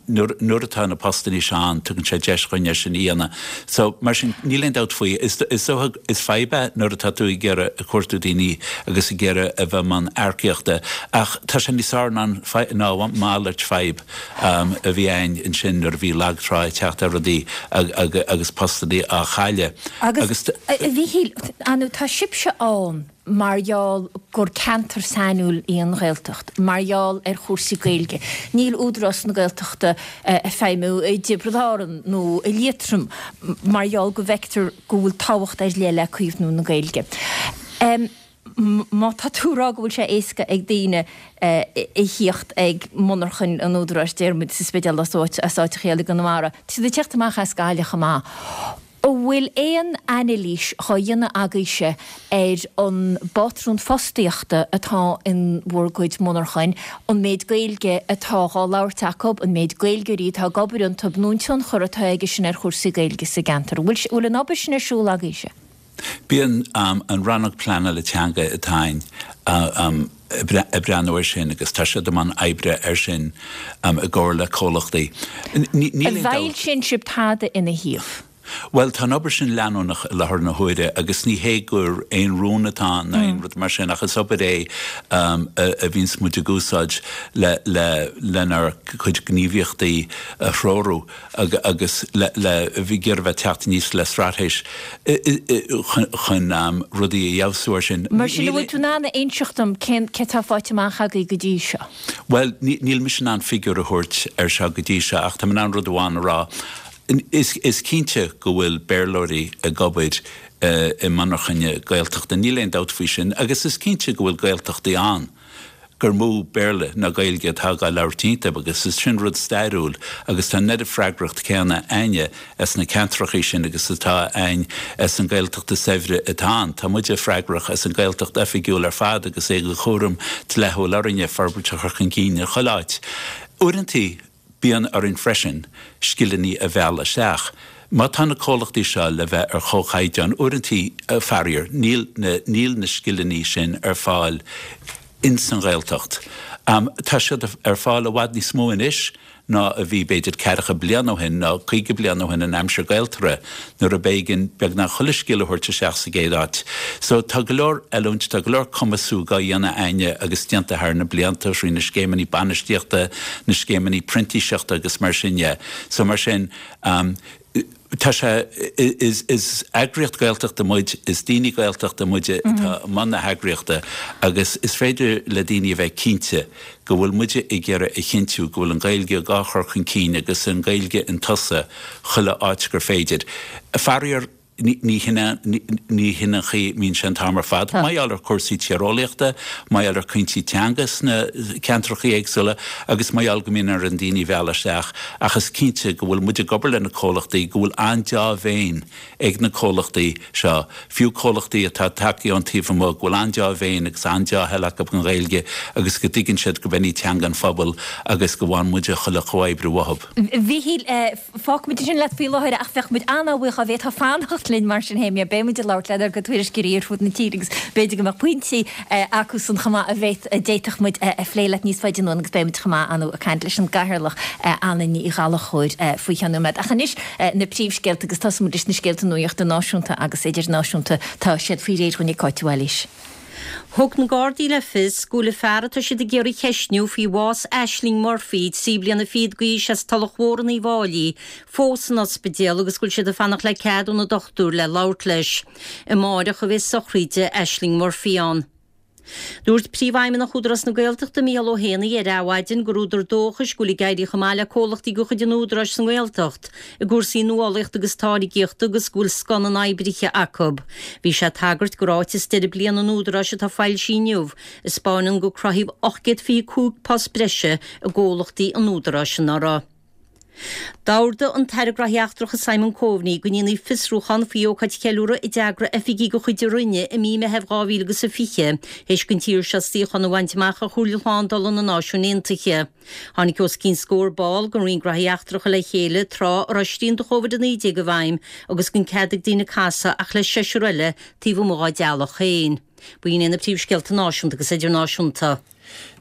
nuair atá na postannaí seo ann tugann sé deis dhuinn é sin a dhéanamh. So mar sin níl aon dabht faoi, is dócha is fadhb é nuair atá tú ag iarraidh ag cuartú daoine agus ag iarraidh a bheith i mbun earcaíochta ach tá sé níos fearr ná a mhalairt fadhb. a bhí ann ansin nuair a bhí lag trá ag teacht ar rudaí agus postannaí á chailleadh. Agus, a Mhíchíl, ar ndóigh tá sibhse ann mar gheall gur ceantar sainiúil í an Ghaeltacht, mar gheall ar chúrsaí Gaeilge. Níl Údarás na Gaeltachta ag feidhmiú i dTiobraid Árann nó i Liatroim mar gheall go bhfeictear go bhfuil tábhacht ar leith le caomhnú na Gaeilge. Má tá tú ag rá go bhfuil sé éasca ag daoine a thíocht ag monarchain an Údaráis, déarfaimid, sa Spidéal as áit, as áiteacha eile i gConamara, tá siad ag tíocht amach as Gaillimh chomh maith. An bhfuil aon anailís dhá dhéanamh agaibhse ar an bpátrún fostaíochta atá in bhur gcuid monarchain, an méid Gaeilge atá dhá labhairt acu, an méid Gaeilgeoirí atá ag obair iontu, nó an tionchar atá aige sin ar chúrsaí Gaeilge sa gceantar? An bhfuil an obair sin ar siúl agaibhse? Bíonn an Rannóg Pleanála Teanga atá againn ag breathnú air sin agus tá siad i mbun oibre air sin i gcomhar le comhlachtaí. An bhfoilsíonn sibh tada ina thaobh? Bhuel, tá an obair sin leanúnach i láthair na huaire agus ní hé gur aon rún atá ann ná aon rud mar sin ach is obair é a bhíonns muid ag úsáid le lenár gcuid gníomhaíochtaí a threorú. agus le ag iarraidh bheith teacht aníos le straitéis chun rudaí a fheabhsú ar sin. Mar sin, an bhfuil tú in ann a inseacht dom cén cé atá faighte amach agaibh go dtí seo? Bhuel, níl mise in ann figiúr a thabhairt ar seo go dtí seo ach tá mé in ann rud amháin a rá. Is cinnte go bhfuil Béarlóirí ag obair i monarchana Gaeltachta, níl aon dabht faoi sin, agus is cinnte go bhfuil Gaeltachtaí ann. gur mó Béarla ná Gaeilge atá dhá labhairt iontu agus is sin rud stairiúil agus tá an oiread freagracht céanna a'inne as na ceantrachaí sin agus atá a'inn as an Gaeltacht is saibhre atá ann. Tá muide freagrach as an Gaeltacht oifigiúil ar fad agus é de chúram dleathúil orainne forbairt a chur chun cinn i chuile áit. Uaireantaí Bíonn orainn freisin scileanna a mhealladh isteach. Má tá na comhlachtaí seo le bheith ar chomhchaighdeán, uaireantaí, faraor, níl na, níl na scileanna sin ar fáil ins an Ghaeltacht. Tá siad ar fáil i bhfad níos mó anois ná a bhí b'fhéidir ceathracha bliain ó shin nó 50 bliain ó shin in aimsir Gaeltarra nuair a b'éigean beagnach chuile scil a thabhairt isteach sa gcéad áit. So tá go leor oiliúint, tá go leor cumasú dhá dhéanamh a'inne agus déanta thar na blianta thrí na scéimeanna bainistíochta, na scéimeanna printíseachta agus mar sin dhe. So mar sin, tá sé, is, is eagraíocht Gaeltachta muid, is daoine Gaeltachta muide atá i mbun na heagraíochta agus is féidir le daoine a bheith cinnte go bhfuil muide ag iarraidh a chinntiú go bhfuil an Ghaeilge dhá chur chun cinn agus an Ghaeilge in tosach chuile áit gur féidir. Faraor, ní hin an chaoi a mbíonn sé an t-am ar fad. Mar gheall ar chúrsaí tíreolaíochta, mar gheall ar chúinsí teanga sna ceantrachaí éagsúla agus mar gheall go mbíonn orainn daoine a mhealladh isteach ach is cinnte go bhfuil muid ag obair le na comhlachtaí, go bhfuil an-deá-mhéin ag na comhlachtaí seo, fiú comhlachtaí atá tagtha ón taobh amuigh, go bhfuil an-deá-mhéin agus an-deá-thoil acu don Ghaeilge agus go dtuigeann siad gurb in í teanga an phobail agus go bhfaigheann muide chuile chomhoibriú uathu. Mhíchíl, fágfaimid ansin leat faoi láthair ach bheadh muid an-bhuíoch dá bhféadfá fanacht linn mar sin féin. Beidh muid ag labhairt lenár gcuid tuairisceoirí ar fud na tíre agus b'fhéidir go mbeadh pointí acusan chomh maith a bhféad, a d'fhéadfadh muid a phlé leat níos faide anonn agus beidh muid chomh maith ar ndóigh ag caint leis an gCathaoirleach Anna Ní Ghallchóir faoi cheann nóiméad. Ach anois na príomhscéalta agus tosóidh muid leis na scéalta nuachta náisiúnta agus idirnáisiúnta. Tá siad faoi réir dhúinn ag Cáit de Bhailís. Thug na Gardaí le fios go bhfuil an fear atá siad ag iarraidh a cheistniú faoi bhás Ashling Murphy, 13 bliana d'aois as Tulach Mhór in Uíbh Fháilí, fós san ospidéal agus go bhfuil siad ag fanacht le cead ó na dochtúir le labhairt leis. Amáireach a bheidh sochraid Ashling Murphy ann. Dúirt Príomhfheidhmeannach Údarás na Gaeltachta, Micheál Ó hÉanaí, ar Adhmhaidin gur údar dóchais go bhfuil ag éirí chomh maith le comhlachtaí de chuid an Údaráis sa nGaeltacht i gcúrsaí nuálaíochta agus táirgíochta agus go bhfuil scoth na n-oibrithe acu. Bhí sé ag tagairt do ráiteas deireadh bliana an Údaráis atá foilsithe inniu, a 'spáineann gur cruthaíodh 825 post breise i gcomhlachtaí an Údaráis anuraidh. D'ordaigh an tAire Gnóthaí Eachtracha Simon Coveney go ndéanfaí fiosrúchán faoi ócáid cheiliúrtha a d'eagraigh oifigigh de chuid a Roinne i mí Meithimh 2020 théis don tír seo suíochán a bhaint amach ar Chomhairle Shlándála na Náisiún Aontaithe. Tháinig os cionn scór ball den Roinn Gnóthaí Eachtracha le chéile tráth a raibh srianta Covid-19 i bhfeidhm agus gan cead ag daoine casadh ach le seisear eile taobh amuigh dá dteaghlach féin. B'in iad na príomhscéalta náisiúnta agus idirnáisiúnta.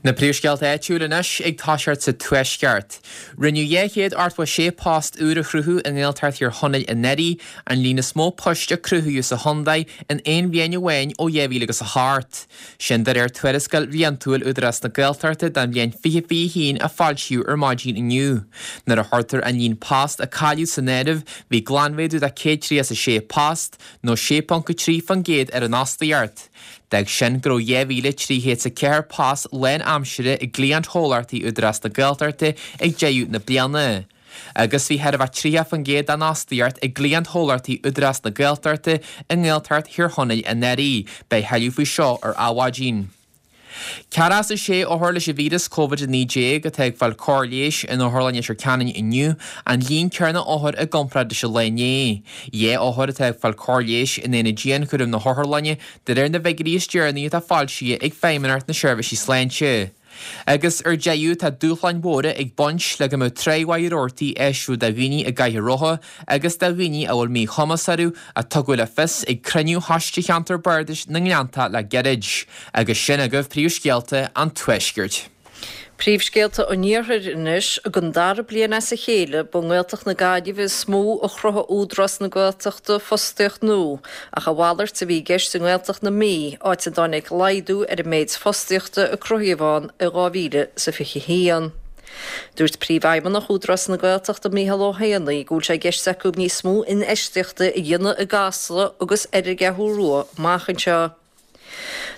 Na príomhscéalta áitiúil anois ag toiseacht sa Tuaisceart. Rinneadh 286 post úr a chruthú i nGaeltacht Thír Chonaill anuraidh, an líon is mó poist a cruthaíodh sa chontae in aon bhliain amháin ó 2008. Sin de réir tuarascáil bhliantúil Údarás na Gaeltachta don bhliain 2021 a foilsíodh ar maidin inniu. Nuair a chuirtear an líon post a cailleadh san áireamh, bhí glanmhéadú de 136 post, nó 6.3% ar an fhostaíocht. D'fhág sin go raibh 2,304 post lánaimsire i gcliantchomhlachtaí Údarás na Gaeltachta ag deireadh na bliana. Agus bhí chóir a bheith 30% den fhostaíocht i gcliantchomhlachtaí Údarás na Gaeltachta i nGaeltacht Thír Chonaill anuraidh. Beidh tuilleadh faoi seo ar Adhmhaidin. 46 othar leis an víreas Covid-19 atá ag fáil cóir leighis in Otharlann Leitir Ceanainn inniu, an líon céanna othar i gcomparáid leis an lá inné. 2 othar atá ag fáil cóir leighis in aonad dianchúraim na hotharlainne, de réir na bhfigiúirí is deireanaí atá foilsithe ag Feidhmeannacht na Seirbhísí Sláinte. Agus ar deireadh, tá dúshláin mhóra ag baint le go mbeadh tráigh mhaith rabhartaí áisiúil do dhaoine i gcathaoir rotha agus do dhaoine a bhfuil míchumas orthu, a tugadh le fios ag cruinniú Choiste Cheantar Bardais na nGleanntach le gairid. Agus sin agaibh príomhscéalta an Tuaiscirt. Príomhscéalta an Iarthair anois. Don dara bliain as a chéile, ba i nGaeltacht na Gaillimhe is mó a chruthaigh Údarás na Gaeltachta fostaíocht nua, ach a mhalairt a bhí i gceist i nGaeltacht na Mí, áit a dtáinig laghdú ar an méid fostaíochta a cruthaíodh ann i 2021. Dúirt Príomhfheidhmeannach Údarás na Gaeltachta Micheál Ó hÉanaí go bhfuil sé i gceist acu níos mó infheistíochta a dhéanamh i gCasla agus ar an gCeathrú Rua amach anseo.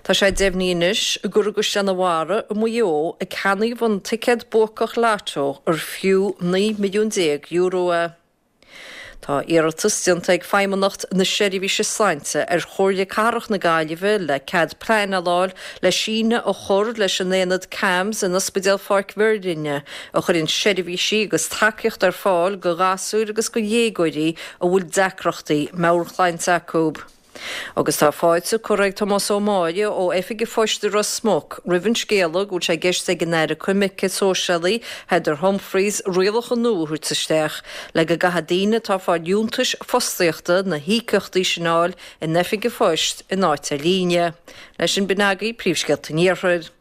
Tá sé deimhnithe anois gur i gCaisleán an Bharraigh i Maigh Eo a ceannaíodh an ticéad buacach Lotto ar fiú €19 milliún é. Tá iarratas déanta ag Feidhmeannacht na Seirbhíse Sláinte ar Chomhairle Cathrach na Gaillimhe le cead pleanála a fháil le síneadh a chur leis an aonad CAMHS in Ospidéal Pháirc Mhuirlinne a chuireann seirbhísí agus tacaíocht ar fáil do ghasúir agus do dhéagóirí a bhfuil deacrachtaí meabhairshláinte acu. Agus tá fáilte curtha ag Tomás Ó Máille ó Oifig an Phoist i Ros Muc roimh an scéala go bhfuil sé i gceist ag an Aire Coimirce Sóisialaí Heather Humphreys rialacha nua a thabhairt isteach le go gcaithfidh daoine atá ag fáil liúntais fostaíochta na híocaíochtaí sin a fháil in Oifig an Phoist in áit ar líne. Leis sin b'in agaibh príomhscéalta an Iarthair.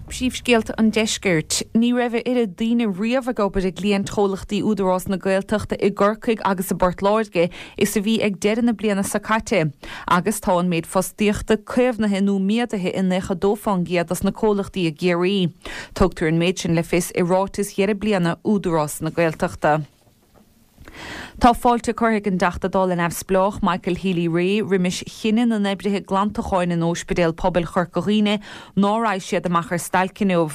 Príomhscéalta an Deiscirt. Ní raibh a oiread daoine riamh ag obair i gcliaint-chomhlachtaí Údarás na Gaeltachta i gCorcaigh agus i bPort Láirge is a bhí ag deireadh na bliana seo caite. Agus tá an méid fostaíochta caomhnaithe nó méadaithe i 92 fán gcéad dos na comhlachtaí i gCiarraí. Tugtar an méid sin le fios i ráiteas dheireadh bliana Údarás na Gaeltachta. Tá fáilte curtha ag an dTeachta Dála neamhspleách Michael Healy-Rae roimis chinneadh na n-oibrithe glantacháin in Óispidéal Pobail Chorca Dhuibhne ná raghaidh siad amach ar stailc inniu.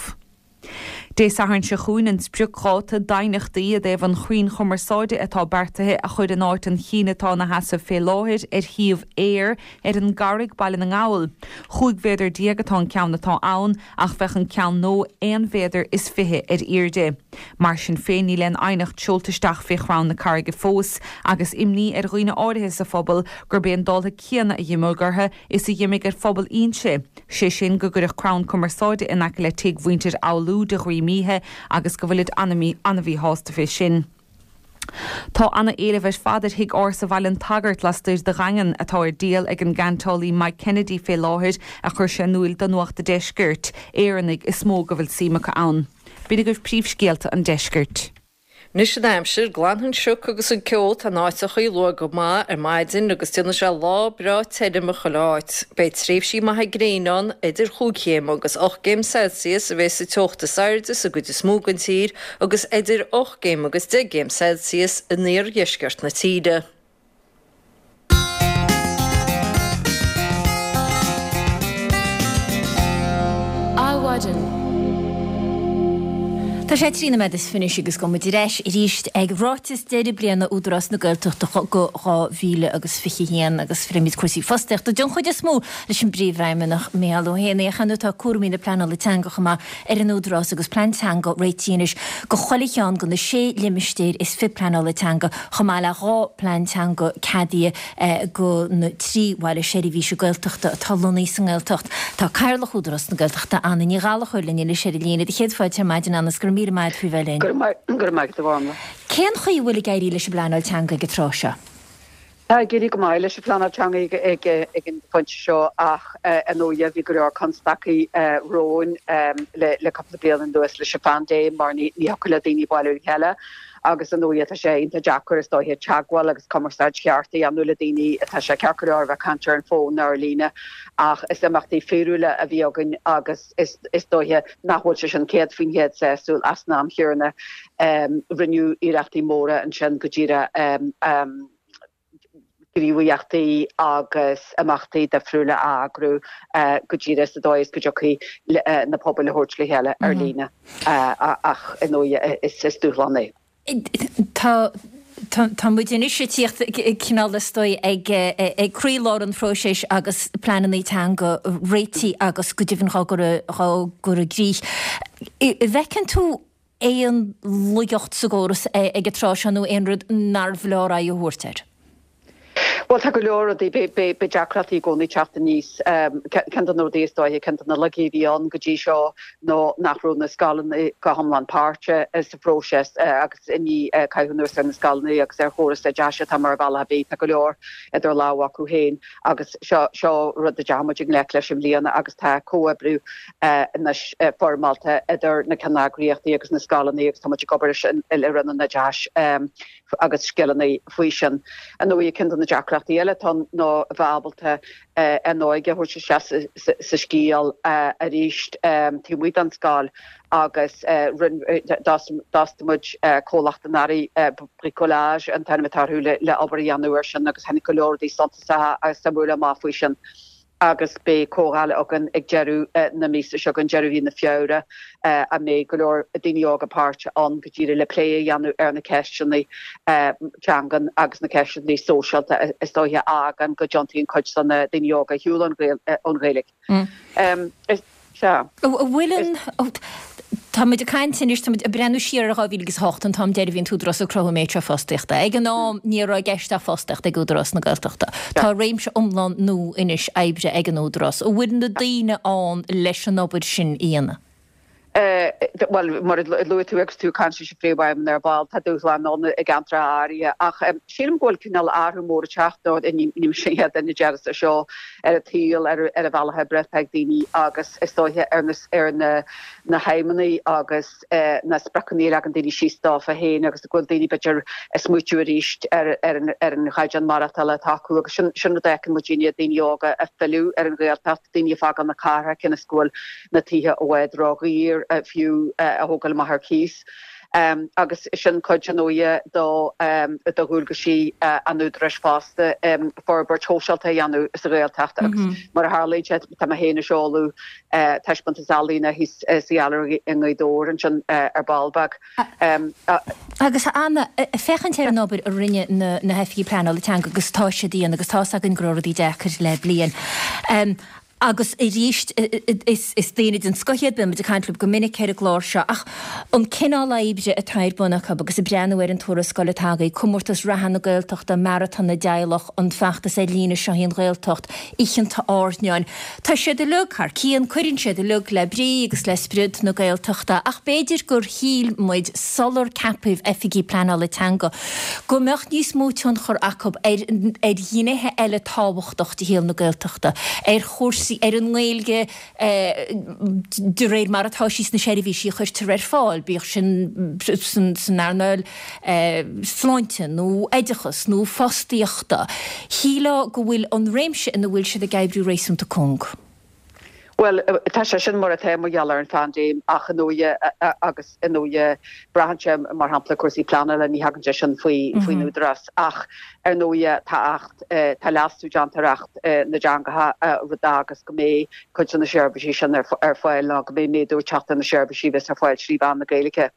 Dé Sathairn seo chugainn an spriocdháta d'aighneachtaí i dtaobh an chrainn chumarsáide atá beartaithe a chur in áit an chinn atá ina sheasamh fé láthair ar shuíomh Eir ar an gCarraig, Baile na nGall. 15 mhéadar atá an ceann atá ann ach bheadh an ceann nua aon mhéadar is 20 ar airde. Mar sin féin, níl aon aighneacht seolta isteach fé chrann na carraige fós, agus imní ar dhaoine áirithe sa phobal gurb é an dáltha céanna a dh'imeodh orthu is a dh'imigh ar phobal Fhínse, sé sin go gcuirfeadh crann cumarsáide in aice le tigh mhuintir Fhoghlú de dhroim oíche agus go bhfuilid ana-mhíshásta fé sin. Tá ana-éileamh ar fad ar thigh ársa Bhaile an tSagairt lastoir de Dhaingean, atá ar díol ag an gceantálaí Mike Kennedy fé láthair, a chuir sé in úil do Nuacht a' Deiscirt. Éireannaigh is mó go bhfuil suim acu ann. B'in agaibh príomhscéalta an deiscirt. Anois an aimsir, glanfaidh an sioc agus an ceo atá in áiteachaí luath go maith ar maidin agus déanfaidh sé lá breá tirim i chuile áit. Beidh tréimhsí maithe gréine ann, idir chúig chéim agus ocht gcéim Celsius a bheas an teocht is airde sa gcuid is mó den tír agus idir 8 gcéim agus 10 gcéim Celsius in iardheisceart na tíre. Adhmhaidin. Tá sé 13 nóiméad is 26 agus gabhfaidh muid ar ais arís ag ráiteas deireadh bliana Údarás na Gaeltachta do 2021 agus pléimid cúrsaí fostaíochta den chuid is mó leis an bPríomhfheidhmeannach Micheál Ó hÉanaí ach ar ndóigh tá cúraimí na pleanála teanga chomh maith ar an Údarás agus plean teanga réitithe anois do chuile cheann de na sé limistéar is fiche pleanála teanga chomh maith le 2 plean teanga ceadaithe do na 3 bhaile seirbhíse Gaeltachta atá lonnaithe sa nGaeltacht. Tá Cathaoirleach Údarás na Gaeltachta, Anna Ní Ghallchóir linn anois ar an líne. Do chéad fáilte ar maidin Anna is go raibh míle maith agat faoi bheith linn. Go raibh maith agat a Mhánla. Cén chaoi a bhfuil ag éirí leis an bpleanáil teanga ag an tráth seo? Tá ag éirí go maith leis an phleanáil teanga ag an phointe seo ach ar ndóighe bhí go leor constaicí romhainn le cúpla bliain anuas leis an phaindéim mar ní thiocfadh le daoine bailiú le chéile agus ar ndóighe tá sé iontach deacair is dóiche teagmháil agus cumarsáid cheart a dhéanamh le daoine. Tá sé ceart go leor a bheith ag caint ar an bhfón nó ar líne ach is imeachtaí fíorúla a bhí againn agus is dóiche nach bhfuil sé sin 100% sásúil ach san am chéanna rinneadh iarrachtaí móra ansin go díreach gníomhaíochtaí agus imeachtaí difriúla a eagrú go díreach sa dóigh is go dtiocfaidh na pobail a thabhairt le chéile ar líne ach ar ndóighe is dúshlán é. Tá tá muid anois ag tíocht cineál is dóigh ag ag croílár an phróisis agus pleananna teanga réitithe agus go deimhin á gcur á gcur i gcrích. An bhfeiceann tú aon laigeacht sa gcóras ag an tráth seo nó aon rud nárbh leor aghaidh a thabhairt air? Bhuel, tá go leor rudaí, beidh deacrachtaí i gcónaí ag teacht aníos. Ceann de na rudaí is dóiche, ceann de na laigí a bhí ann go dtí seo ná nach raibh na scoileanna go hiomlán páirteach sa phróiseas agus i ndiaidh caitheamh anuas ar na scoileanna agus ar chóras oideachais atá mar bhealach ar bith, tá go leor idir lámha acu féin agus seo, seo rud a dteachaidh muid i ngleic leis i mbliana agus tá comhoibriú anois foirmeálta idir na ceanneagraíochtaí agus na scoileanna agus tá muid ag obair leis le Roinn an Oideachais. agus Scileanna faoi sin. Ar ndóigh, ceann de na deacrachtaí eile atá ann ná a bheith ábalta an óige a thabhairt isteach sa scéal arís taobh amuigh den scoil agus d'fhostaigh muid comhlacht anuraidh, Bricolage an t-ainm atá orthu, le obair a dhéanamh air sin agus tháinig go leor rudaí suntasacha agus suimiúla amach faoi sin. agus beidh comhdháil againn ag deireadh na míosa seo chugainn, deireadh mhí na Feabhra, a mbeidh go leor daoine óga páirteach ann go díreach le plé a dhéanamh ar na ceisteanna teangan agus na ceisteanna sóisialta is dóiche a fhágann go dtiontaíonn cuid de na daoine óga ar shiúl ón Ghaeilge. Sea. An bhfuil an. Tá muid ag caint anois, tá muid ag breathnú siar ar 2008, an t-am deiridh a bhí an tÚdarás ag cruthú an méid seo fostaíochta. Ag an am, ní raibh i gceist ach fostaíocht ag Údarás na Gaeltachta. Tá réimse iomlán nua anois oibre ag an Údarás. An bhfuil na daoine ann leis an obair sin a dhéanamh? Bhuel, mar a luaigh tú agus tú ag caint leis an Phríomhfheidhmeannach ar ball, tá dúshláin ann i gceantracha áirithe ach sílim go bhfuil cineál athrú mór ag teacht, nó ní mise an chéad duine a déarfas é seo, ar an tsaol, ar an bhealach oibre atá ag daoine agus is dóiche ar na ar na na haidhmeanna agus na spriocanna a leagann daoine síos dófa féin agus go bhfuil daoine b'fhéidir ag smaoitiú arís ar ar an ar an chaighdeán maireachtála atá acu agus sin sin rud a fheiceann muidinne, daoine óga ag filleadh ar an Ghaeltacht, daoine ag fágáil na cathrach cionn is go bhfuil na tithe i bhfad ródhaor fiú a thógáil amach ar cíos. Agus sin cuid, ar ndóighe, do dhualgaisí an Údaráis fosta, forbairt shóisialta a dhéanamh sa Ghaeltacht agus mar a tharlaíonn sé, tá mé féin ag seoladh taispeántas ealaíne thíos sa Ghailearaí i nGaoth Dobhair ansin ar ball beag. Agus a Anna, féachaint ar an obair a rinne na hoifigigh pleanála teanga agus atá siad a dhéanamh agus tá's againn go raibh rudaí deacair le bliain. Agus arís, is daoine den scoth iad, bíonn muid ag caint leo go minic ar an gclár seo, ach an cineál oibre atá ar bun acu agus ag breathnú ar an tuarascáil atá agaibh, Comórtas Reatha na Gaeltachta, Maratón na dTeaghlach, an feachtas ar líne Seo í an Ghaeltacht, Oícheanta Airneáin, tá siad uilig thar cionn, cuireann siad uilig le brí agus le spriod na Gaeltachta, ach b'fhéidir gur shíl muid sular ceapadh Oifigigh Pleanála Teanga go mbeadh níos mó tionchar acu ar ar ghnéithe eile tábhachtach de shaol na Gaeltachta, ar chúrsaí, ar an nGaeilge de réir mar atá sí sna seirbhísí a chuirtear ar fáil, bíodh sin san earnáil sláinte nó oideachas nó fostaíochta. Shílfeá go bhfuil an réimse ina bhfuil siad ag oibriú réasúnta cúng. Bhuel, tá sé sin mar atá mar gheall ar an phaindéim ach ar ndóighe agus ar ndóighe braitheann sé mar shampla cúrsaí pleanála, ní thagann sé sin faoi faoin Údarás ach ar ndóighe tá Acht, tá leasú déanta ar Acht na dTeangacha rud a fhágas go mbeidh cuid de na seirbhísí sin ar fáil nó go mbeidh méadú ag teacht ar na seirbhísí a bheas ar fáil trí mheán na Gaeilge.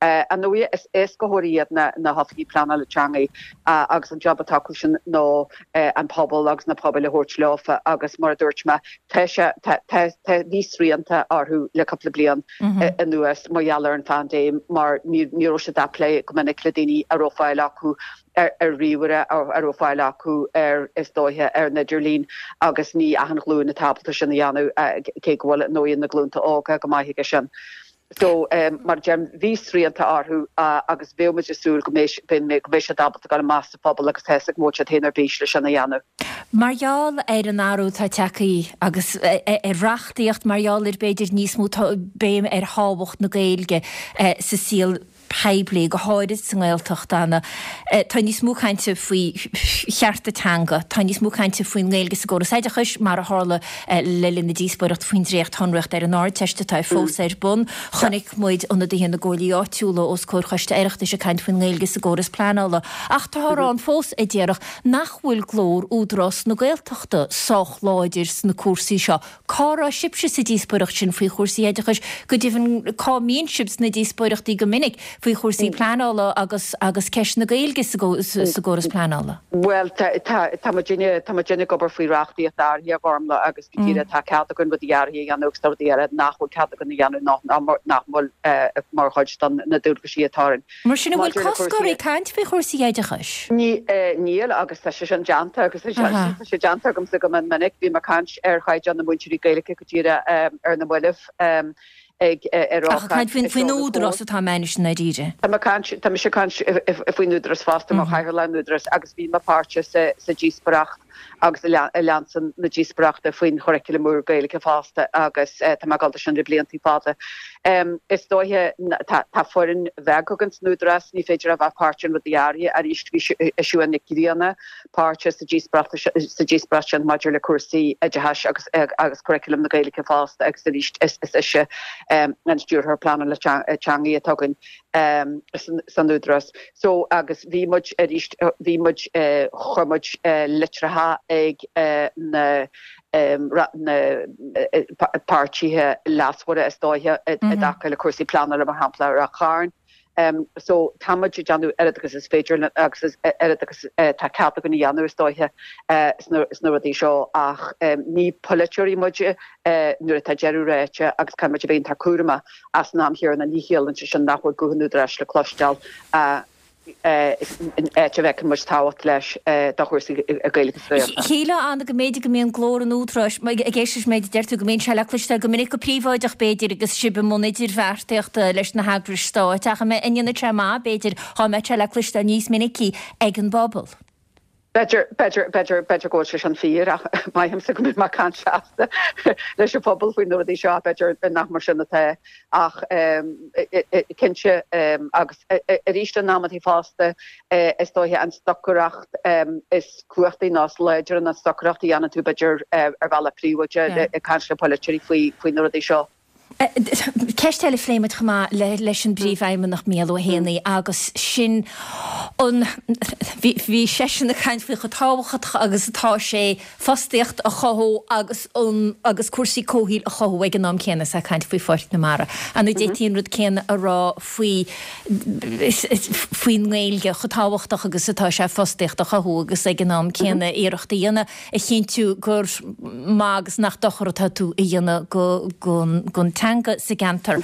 Ar ndóighe is éascaitheoirí iad na hoifigigh pleanála teanga agus an job atá acu sin ná an pobal agus na pobail a thabhairt leofa agus mar a dúirt mé tá sé tá tá tá bhí srianta orthu le cúpla bliain anuas mar gheall ar an phaindéim mar ní ní raibh siad ag plé go minic le daoine a raibh fáil acu ar ar ríomhaire a raibh fáil acu ar is dóiche ar an idirlíon agus ní achan ghlúin atá ábalta sin a dhéanamh cé go bhfuil ar ndóighe na glúnta óga go maith aige sin. So, mar a deirim, bhí srianta orthu agus bheadh muid ag súil go mbeidh, go mbeidh siad ábalta dul amach sa phobal agus tá a fhios agam go bhfuil siad féin ar bís le sin a dhéanamh. Mar gheall ar an athrú atá tagtha agus ar reachtaíocht, mar gheall ar b'fhéidir níos mó béim ar thábhacht na Gaeilge sa saol poiblí, go háirid sa nGaeltacht, Anna, tá níos mó cainte faoi chearta teanga, tá níos mó cainte faoin nGaeilge sa gcóras oideachais, mar a tharla le linn na díospóireachta faoin dréacht-shonraíocht ar an Ardteist atá fós ar bun. Chonaic muid ionadaithe na gcomhairlí áitiúla os comhair Choiste Oireachtais ag caint faoin nGaeilge sa gcóras pleanála. Ach táthar ann fós a déarfadh nach bhfuil glór Údarás na Gaeltachta sách láidir sna cúrsaí seo. Cá raibh sibhse sa díospóireacht sin faoi chúrsaí oideachais? Go deimhin, cá mbíonn sibh sna díospóireachtaí go minic? faoi chúrsaí pleanála agus agus ceist na Gaeilge sa gcóras pleanála. Bhuel, tá muidinne, tá muidinne ag obair faoi reachtaíocht áirithe, a Ghormlaith, agus go díreach tá cead againn rudaí áirithe a dhéanamh agus tá rudaí eile nach bhfuil cead againn a dhéanamh nó nach bhfuil mar chuid de na dualgaisí atá orainn. Mar sin, an bhfuil cosc oraibh caint faoi chúrsaí oideachais? Níl, agus tá sé sin déanta agus tá sé déanta agamsa go mion minic. Bhí mé ag caint ar chaighdeán na múinteoirí Gaeilge go díreach ar na mallaibh ag ar Ach ag caint faoin Údarás atá mé anois i ndáiríre. Tá mé ag caint, tá mise ag caint faoin Údarás fosta mar chathaoirleach an Údaráis agus bhí mé páirteach sa díospóireacht agus a lean na díospóireachta faoin churaclam úr Gaeilge fosta agus tá mé ag dul dó sin le blianta fada. Is dóiche tá foireann bheag againn san Údarás, ní féidir a bheith páirteach in rudaí áirithe. Arís bhí Siún Nic Grianna páirteach sa díospóireacht sa díospóireacht sin maidir le cúrsaí oideachais agus agus curaclam na Gaeilge fosta agus arís is ise an Stiúrthóir Pleanála Teangaí atá againn san Údarás. So agus bhí muid arís bhí muid chuir muid litreacha ag na na páirtithe leasmhara is dóiche i dtaca le cúrsaí pleanála mar shampla ar Ráth Chairn. So tá muid ag déanamh oiread agus is féidir linn agus oiread agus tá cead againn a dhéanamh is dóiche sna rudaí seo ach ní polaiteoirí muid nuair atá deireadh ráite agus caithfidh muid a bheith iontach cúramach ach san am chéanna ní chiallaíonn sé sin nach bhfuil guth an Údaráis le cloisteáil in áit a bhfeiceann muid tábhacht leis do chúrsaí Gaeilge sa Ghaeltacht. Shílfeá, Anna, go mb'fhéidir go mbíonn glór an Údaráis, ag éisteacht leis an méid a deir tú, go mbíonn sé le cloisteáil go minic go príobháideach, b'fhéidir, agus sibh i mbun idirbheartaíochta leis na heagrais stáit, ach an ndéanfadh sé maith, b'fhéidir, dhá mbeadh sé le cloisteáil níos minicí ag an bpobal? B'fhéidir, b'fhéidir, b'fhéidir, b'fhéidir go bhfuil sé sin fíor ach maithimse go mbím ag caint seasta leis an phobal faoi na rudaí seo, b'fhéidir nach mar sin atá ach cinnte agus arís in amantaí fosta is dóiche an stocaireacht is cumhachtaí nó is láidre ná an stocaireacht a dhéanann tú b'fhéidir ar bhealach príobháideach ag caint le polaiteoirí faoi faoi na rudaí seo. Ceist eile a phléigh muid chomh maith leis an bPríomhfheidhmeannach Mícheál Ó hÉanaí agus sin an, bhí seisean ag caint faoi chomh tábhachtach agus atá sé fostaíocht a chothú agus an, agus cúrsaí comhshaoil a chothú ag an am céanna is é ag caint faoi Pháirc na Mara. An d'fhéadfaí an rud céanna a rá faoi, faoin nGaeilge, chomh tábhachtach agus atá sé fostaíocht a chothú agus ag an am céanna iarracht a dhéanamh a chinntiú gur maith agus nach dochar atá tú a dhéanamh don teanga sa gceantar.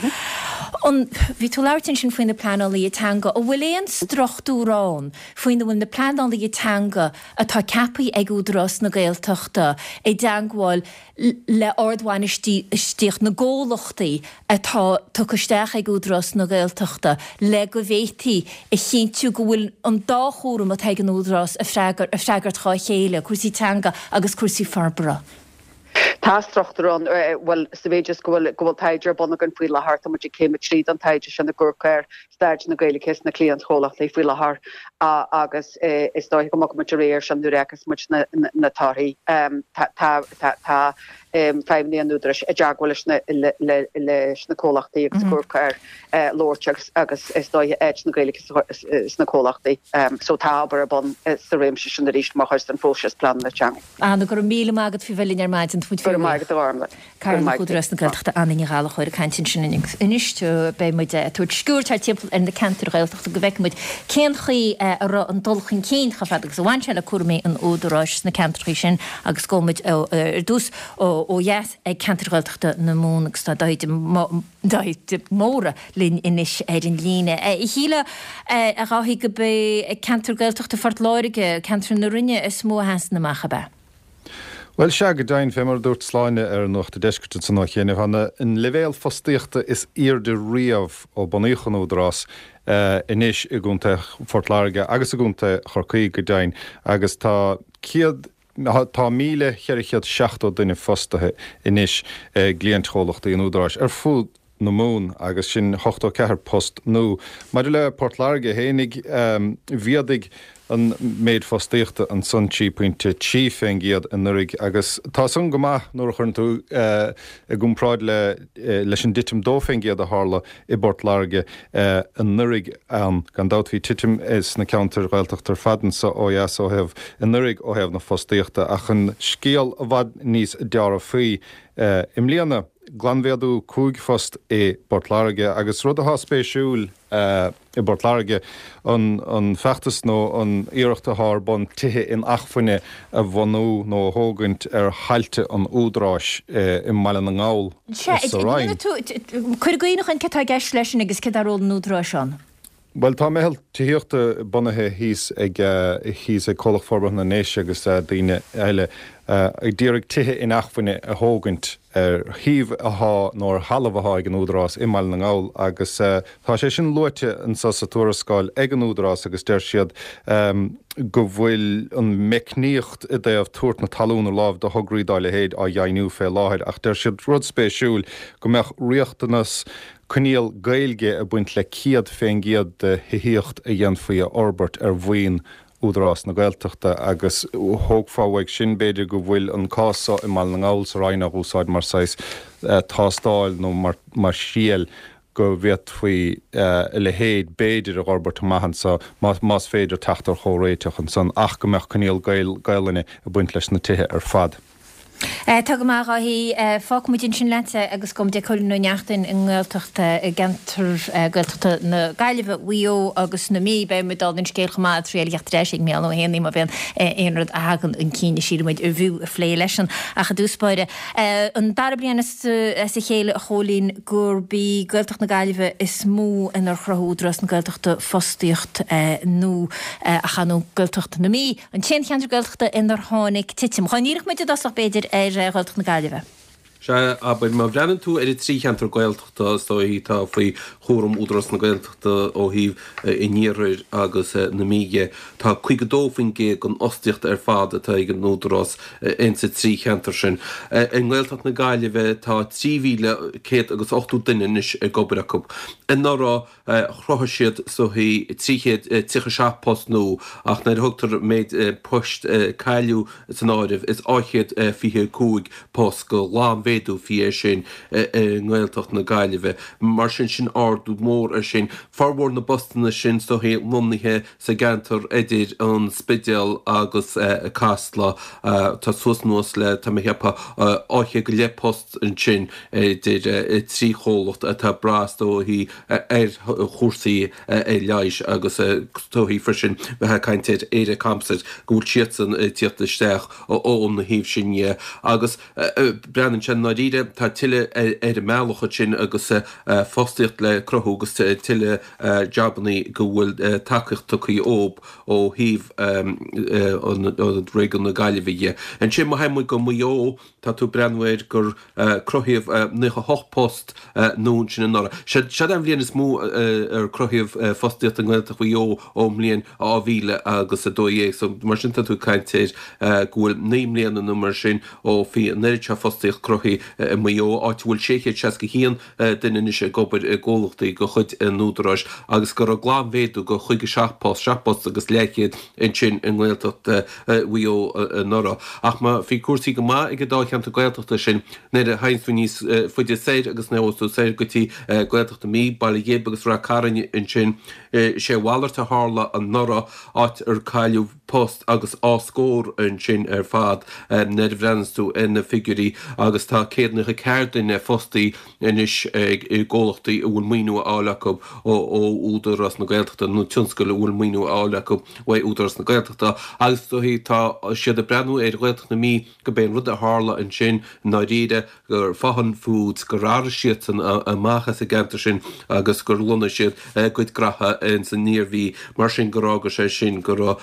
An, bhí tú ag labhairt ansin faoi na pleanálaithe teanga, an bhfuil aon struchtúr ann faoina bhfuil na pleanálaithe teanga atá ceaptha ag Údarás na Gaeltachta i dteangmháil le ardbhainistíocht na gcomhlachtaí atá tugtha isteach ag Údarás na Gaeltachta le go bhféadfaí a chinntiú go bhfuil an dá chúram atá ag an Údarás ag freagairt dhá chéile, cúrsaí teanga agus cúrsaí forbartha. Tá struchtúr ann, bhuel, sa mhéid is go bhfuil, go bhfuil taighde ar bun againn faoi láthair, tá muid ag céim 3 den taighde sin ag amharc ar staid na Gaeilge sna cliantchomhlachtaí faoi láthair agus is dóiche go mbogfaidh muid ar aghaidh air sin nuair a fheiceas muid na torthaí. Tá, tá, tá feidhmeannaigh an Údaráis i dteagmháil leis na comhlachtaí agus ag amharc ar labhairt agus agus is dóiche áit na Gaeilge sna comhlachtaí. So tá obair ar bun sa réimse sin arís mar chuid den phróiseas pleanála teanga. Anna, go raibh míle maith agat faoi bheith linn ar maidin. Tá muid Go raibh maith agat a Ghormlaith. Cathaoirleach Údarás na Gaeltachta Anna Ní Ghallchóir ag caint ansin anois. Beidh muid ag tabhairt sciuird thart timpeall ar na ceantair Ghaeltachta go bhfeicfidh muid cén chaoi a raibh an dul chun cinn chomh fada agus a bhain sé le cúraimí an Údaráis sna ceantracha sin agus gabhfaidh muid ar dtús ó dheas ag ceantair Ghaeltachta na Mumhan agus tá Dáithí Dáithí de Mórdha linn anois ar an líne. Shílfeá, a Dháithí, gurb é ceantar Gaeltachta Phort Láirge, ceantar na Rinne, is mó a sheasann amach, ab ea? Bhuel, sea, go deimhin, fé mar a dúirt Sláine ar Nuacht an Deiscirt ansan ó chianaibh, tá an leibhéal fostaíochta is aoirde riamh ó bunaíodh an Údarás anois i gContae Phort Láirge agus i gContae Chorcaí, go deimhin, agus tá 100, tá 1,470 duine fostaithe anois i gcliaint-chomhlachtaí an Údaráis ar fud na Mumhan agus sin 84 post nua. Maidir le Port Láirge fhéinig, mhéadaigh an méid fostaíochta ansan 3 pointe 3 fén gcéad anuraidh agus tá san go maith nuair a chuireann tú i gcomparáid le leis an dtitim 2 fén gcéad a tharla i bPort Láirge anuraidh ann. Gan dabht bhí titim sna ceantair Ghaeltachta ar fad anso ó dheas ó thaobh anuraidh ó thaobh na fostaíochta ach an scéal i bhfad níos dearfaí i mbliana. Glanmhéadú 5 phost i bPort Láirge agus rud atá spéisiúil i bPort Láirge, an feachtas nó an iarracht atá ar bun tithe inacmhainne a bhunú nó a thógaint ar thailte an Údaráis i mBaile na nGall sa Rinn. Cuir i gcuimhne dhúinn céard atá i gceist leis sin agus céard é ról an Údaráis ann. Bhuel, tá meitheal tithíochta bunaithe thíos ag thíos ag Comhlacht Forbartha na nDéise agus daoine eile ag d'iarraidh tithe inacmhainne a thógaint ar shuíomh athá nó ar thalamh athá ag an Údarás i mBaile na nGall agus tá sé sin luaite anso sa tuarascáil ag an Údarás agus deir siad go bhfuil an meicníocht i dtaobh tabhairt na talún ar láimh do thograí dá leithéid á dheimhniú fé láthair ach deir siad rud spéisiúil go mbeadh riachtanas Coinníoll Gaeilge ag baint le 100% de thithíocht a dhéanfaí a fhorbairt ar mhaoin Údarás na Gaeltachta agus thógfá uaidh sin, b'fhéidir, go bhfuil an cás so i mBaile na nGall sa Rinn á úsáid mar saghas tástáil nó mar thriail go bhféadfaí a leithéid, b'fhéidir, a dh'fhorbairt amach anso más féidir teacht ar chomhréiteach ansan ach go mbeadh coinníoll Gaelainne ag baint leis na tithe ar fad. Tá go maith, a Dháithí. Fágfaidh muid ansin leatsa agus gabhfaidh muid ag Cóilín Ó Neachtain i nGaeltacht, i gceantar Gaeltachta na Gaillimhe, Mhaigh Eo agus na Mí. Beidh muid dála an scéil chomh maith ag triail a theacht ar ais ag Mícheál Ó hÉanaí má bhíonn aon rud a thagann chun cinn a síleann muid arbh fhiú a phlé leisean. Ach i dtús báire, an dara bliain as a chéile, a Chóilín, gurb í Gaeltacht na Gaillimhe is mó inar chruthaigh Údarás na Gaeltachta fostaíocht nua ach ar ndóigh Gaeltacht na Mí. An t-aon cheantar Gaeltachta inar tháinig titim. Dhá n-iarrfadh muid i dtosach, b'fhéidir, ar Ghaeltacht na Gaillimhe. Sea, abair, má bhreathnaíonn tú ar an trí cheantar Gaeltachta, is dóichí, atá faoi chúram Údarás na Gaeltachta ó thaobh an Iarthair agus na Mí dhe, tá 52% den fhostaíocht ar fad atá ag an Údarás insa trí cheantar sin. I nGaeltacht na Gaillimhe tá 3,100 agus 80 duine anois ag obair acu. Anuraidh, Chruthaigh siad is dóichí 337 post nua ach nuair a thugtar méid poist a cailleadh san áireamh is 225 post go ghlanmhéadú a bhí air sin i nGaeltacht na Gaillimhe. Mar sin, sin ardú mór air sin. Formhór na bpostanna sin is dóichí lonnaithe sa gceantar idir an Spidéal agus Casla. Tá suas anuas le, tá mé ag ceapadh, 200 go leith post ansin idir trí chomhlacht atá ag brath is dóichí ar chúrsaí leighis agus is dóichí freisin bheith ag caint ar Éire Composites go bhfuil siadsan ag tíocht isteach ón thaobh sin dhe agus breathnaíonn sé i ndáiríre tá tuilleadh ar an mbealach ansin agus fostaíocht le cruthú agus tuilleadh jabannaí go bhfuil tacaíocht tugtha dhób ó thaobh an réigiún na Gaillimhe dhe. Ansin má théann muid go Maigh Eo tá tú ag breathnú air gur cruthaíodh 98 post nua ansin anuraidh. Seod é an bhliain is mó ar cruthaíodh fostaíocht i nGaeltacht Mhaigh Eo ón mbliain 2000 agus 12. So mar sin tá tú ag caint ar go bhfuil 9 mbliana nó mar sin ó bhí an oiread seo fostaíocht cruthaithe i Maigh Eo, áit a bhfuil 661 duine anois ag obair i gcomhlachtaí de chuid an Údaráis agus go raibh glanmhéadú de 57 post, 7 bpost agus leathchéad ansin i nGaeltacht Mhaigh Eo anuraidh. Ach má bhí cúrsaí go maith ag an dá cheantar Gaeltachta sin, nuair a théanns tú níos faide soir agus nuair a ghabhas tú soir go dtí Gaeltacht na Mí, Baile Ghib agus Rath Cairn ansin, sé a mhalairt a tharla anuraidh, áit ar cailleadh post agus dhá scór ansin ar fad nuair a bhreathnaíos tú ar na figiúirí agus tá 194 duine fostaí anois i gcomhlachtaí a bhfuil maoiniú á fháil acu ó Údarás na Gaeltachta nó tionscail a bhfuil maoiniú á fháil acu uaidh Údarás na Gaeltachta agus tá siad ag breathnú ar Ghaeltacht na Mí go b'é an rud a tharla ansin i ndáiríre gur Faughan Foods, gur athraigh siadsan amach as an gceantar sin agus gur lonnaigh siad a gcuid graithe ins an Iarmhí, mar sin gur fhága sé sin go raibh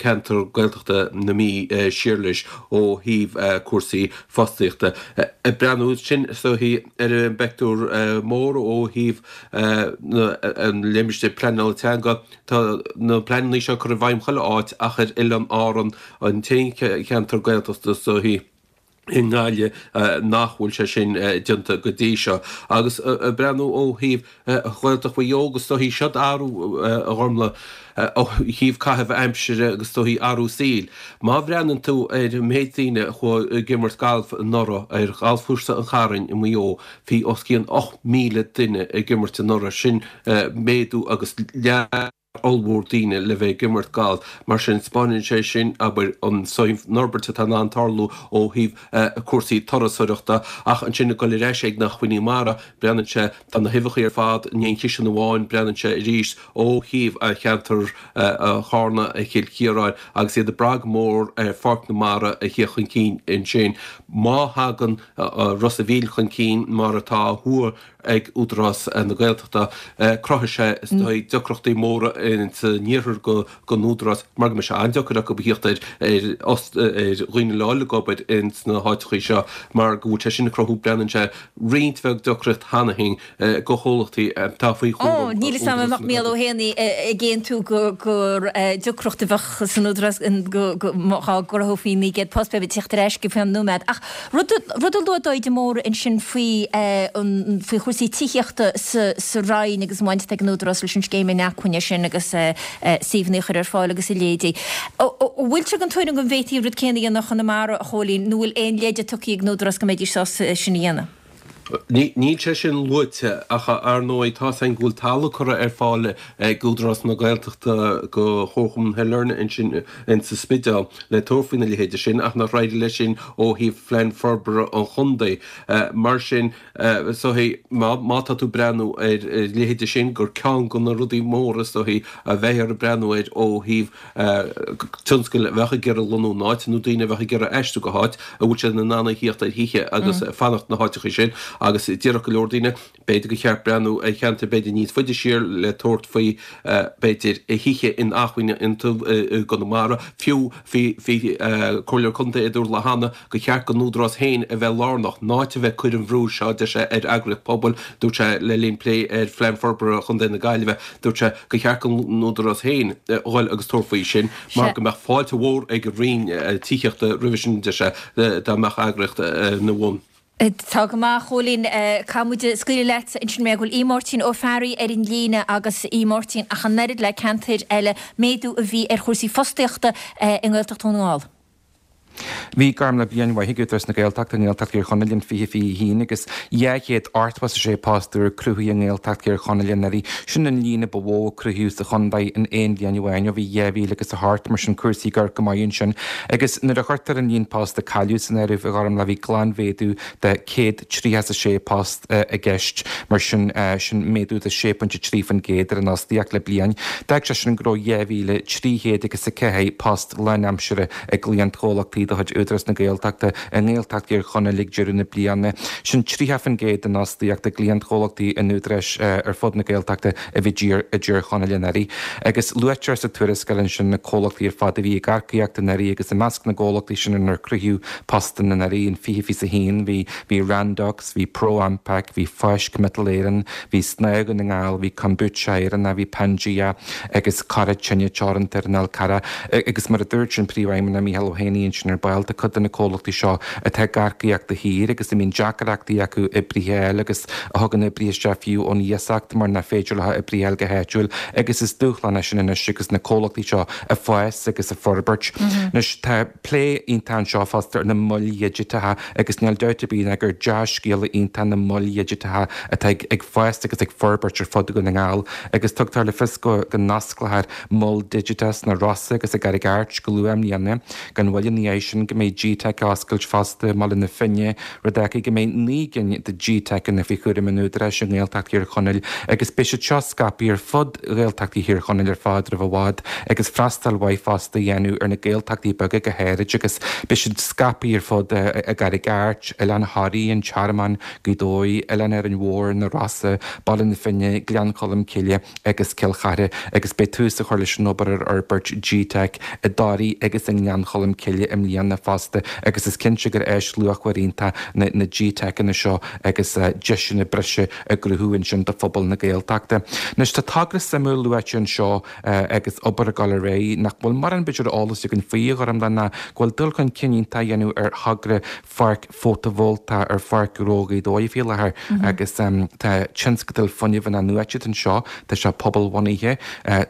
ceantar Gaeltachta na Mí siar leis ó thaobh cúrsaí fostaíochta. Ag breathnú ansin is dóichí ar an bpeictiúr mór ó thaobh an limistéir pleanála teanga, tá na pleananna seo curtha i bhfeidhm chuile áit ach ar Oileáin Árann, an t-aon cheantar Gaeltachta is dóichí. i nGaillimh nach bhfuil sé sin déanta go dtí seo. Agus ag breathnú ó thaobh Ghaeltacht Mhaigh Eo agus is dóichí seod athrú a Ghormlaith ó thaobh caitheamh aimsire agus is dóichí athrú saoil. Má bhreathnaíonn tú ar an méid daoine a chuaigh ag imirt gailf anuraidh ar ghalfchúrsa an Chairn i Maigh Eo, bhí os cionn 8,000 duine ag imirt anuraidh, sin méadú agus leath. ollmhór daoine le bheith ag imirt galf. Mar sin, 'spáineann sé sin, abair, an fhorbairt atá in ann tarlú ó thaobh cúrsaí turasóireachta. Ach ansin ag dul ar ais ag na hacmhainní mara, breathnaíonn sé, tá na huibheacha ar fad in aon chiseán amháin, breathnaíonn sé arís ó thaobh cheantar Charna, Chill Chiaráin agus iad ag brath go mór ar Pháirc na Mara a thíocht chun cinn ansin. Má thagann Ros a' Mhíl chun cinn mar atá á thuar ag Údarás na Gaeltachta, cruthóidh sé is dóigh deacrachtaí móra san iarthar don Údarás mar go mbeidh sé an-deacair acu a thíocht ar ar dhaoine le dhul ag obair ins na háiteachaí seo mar go bhfuil sé sin ag cruthú, breathnaíonn sé, roinnt bheag deacracht cheana féin do chomhlachtaí atá faoi chúram Ó, níl 'fhios a'm an mbeadh Mícheál Ó hÉanaí ag aontú gur deacracht a bheadh san Údarás dá gcruthófaí 900 post, beidh mé ag tíocht ar ais go faoi nóiméad. Ach rud a luaigh Daid de Mórdha ansin faoi faoi chúrsaí tithíochta sa Roinn agus an bhaint atá ag an Údarás leis an scéim inacmhainne sin agus suíomhanna a chur ar fáil agus a leithéidí. An bhfuil tú den tuairim go bhféadfaí an rud céanna a dhéanamh i gConamara, a Chóilín, nó bhfuil aon leide tugtha ag an Údarás go mbeidís sásta é sin a dhéanamh? Níl sé sin luaite ach ar ndóigh tá's againn go bhfuil talamh curtha ar fáil ag Údarás na Gaeltachta go Chomharchumann Shailearna ansin insa Spidéal le tabhairt faoina leithéide sin ach nach éireoidh leis sin ó thaobh phlean forbartha an chontae. Mar sin is dóichí má tá tú ag breathnú ar a leithéide sin gur ceann de na rudaí móra is dóichí a bheifear ag breathnú air ó thaobh tionscail a bheadh ag iarraidh lonnú in áit nó daoine a bheadh ag iarraidh aistriú go háit a bhfuil siad in ann a thíocht ar thithe agus fanacht na háiteacha sin agus déarfadh go leor daoine b'fhéidir gur cheart breathnú ar cheantair b'fhéidir níos faide siar le tabhairt faoi b'fhéidir thithe inacmhainne iontu i gConamara. Fiú bhí bhí Comhairleoir Contae a dúirt lá cheana gur cheart don Údarás féin a bheith lárnach, in áit a bheith ag cur an bhrú seo, deir sé, ar eagraíocht pobail. Dúirt sé le linn plé ar Phlean Forbartha Chontae na Gaillimhe, dúirt sé gur cheart don Údarás féin dhul agus tabhairt faoi sin mar go mbeadh fáilte mhór ag an Roinn Tithíochta roimhe sin, deir sé, dá mbeadh eagraíocht ina bhun. Tá go maith, a Chóilín. Caithfidh muid scaoileadh leat ansin mar go bhfuil Aodh Máirtín Ó Fearraigh ar an líne agus Aodh Máirtín ach an oiread le ceantair eile, méadú a bhí ar chúrsaí fostaíochta i nGaeltacht Dhún na nGall. Bhí Gormlaith bliain mhaith ag Údarás na Gaeltachta i nGaeltacht Thír Chonaill in 2021 agus 286 post úr cruthaithe i nGaeltacht Thír Chonaill anuraidh. Sin an líon a ba mhó a cruthaíodh sa chontae in aon bhliain amháin ó bhí 2008, mar sin cúrsaí ag amharc go maith ansin. Agus nuair a chuirtear an líon post a cailleadh san áireamh, a Ghormlaith, bhí glanmhéadú de 136 post i gceist, mar sin sin méadú de 6.3% ar an fhostaíocht le bliain. D'fhág sé sin go raibh 2,304 post lánaimseartha i gcliantchomhlachtaí de chuid Údarás na Gaeltachta i nGaeltacht Thír Chonaill ag deireadh na bliana. Sin 30% den fhostaíocht i gcliantchomhlachtaí an Údaráis ar fud na Gaeltachta a bhí i dTír Chonaill anuraidh. Agus luaitear sa tuarascáil ansin na comhlachtaí ar fad a bhí ag earcaíocht anuraidh agus i measc na gcomhlachtaí sin inar cruthaíodh postanna anuraidh in 2021 bhí bhí Randox, bhí ProAmpac, bhí Fáisc Miotal Éireann, bhí Snáth Dhún na nGall, bhí Kombucha Éireannach, bhí Pangea agus Cora Tine Teoranta ar an Fhál Carrach. Agus mar a dúirt an Príomhfheidhmeannach Mícheál Ó hÉanaí ansin ar ball, tá cuid de na comhlachtaí seo atá ag earcaíocht de shíor agus a mbíonn deacrachtaí acu oibrithe a fháil agus a thugann oibrithe isteach fiú ón iasacht mar nach féidir leo oibrithe a fháil go háitiúil agus is dúshlán é sin anois agus na comhlachtaí seo ag fás agus ag forbairt. Anois tá plé iontach anseo fosta ar na moil dhigiteacha agus níl dabht ar bith ná gur dea-scéala iontach na moil dhigiteacha atá ag fás agus ag forbairt ar fud Dhún na nGall agus tugtar le fios go n-osclófar Mol Digiteach sna Rosa agus i gCarraig Airt go luath i mbliana. Gan mhoill ina dhiaidh sin go mbeidh GTeic á oscailt fosta i mBaile na Finne, rud a fhágfaidh go mbeidh 9 gcinn de GTeiceanna faoi chúram an Údaráis i nGaeltacht Thír Chonaill agus beidh siad seo scaipthe ar fud Ghaeltachtaí Thír Chonaill ar fad roimh i bhfad agus freastal mhaith fosta a dhéanamh ar na Gaeltachtaí beaga go háirid agus beidh siad scaipthe ar fud i gCarraig Airt, Oileán Thoraí, An Tearmann, Gaoth Dobhair, Oileán Árainn Mhór, Na Rosa, Baile na Finne, Gleann Cholm Cille agus Cill Chartha agus beidh tús á chur leis an obair ar fhorbairt GTeic i dToraigh agus i nGleann Cholm Cille i mbliana fosta agus is cinnte gur áis luachmhar iontach na GTeiceanna seo agus deiseanna breise á gcruthú ansin do phobal na Gaeltachta. Anois tá togra suimiúil luaite anseo agus obair ag dul ar aghaidh nach bhfuil mórán b'fhéidir eolas againn faoi, a Ghormlaith, ná go bhfuil dul chun cinn iontach á dhéanamh ar thogra pháirc fótavoltach ar Pháirc Ghnó Ghaoth Dobhair faoi láthair agus tá tionscadal fuinnimh in-athnuaite anseo, tá sé pobalbhunaithe,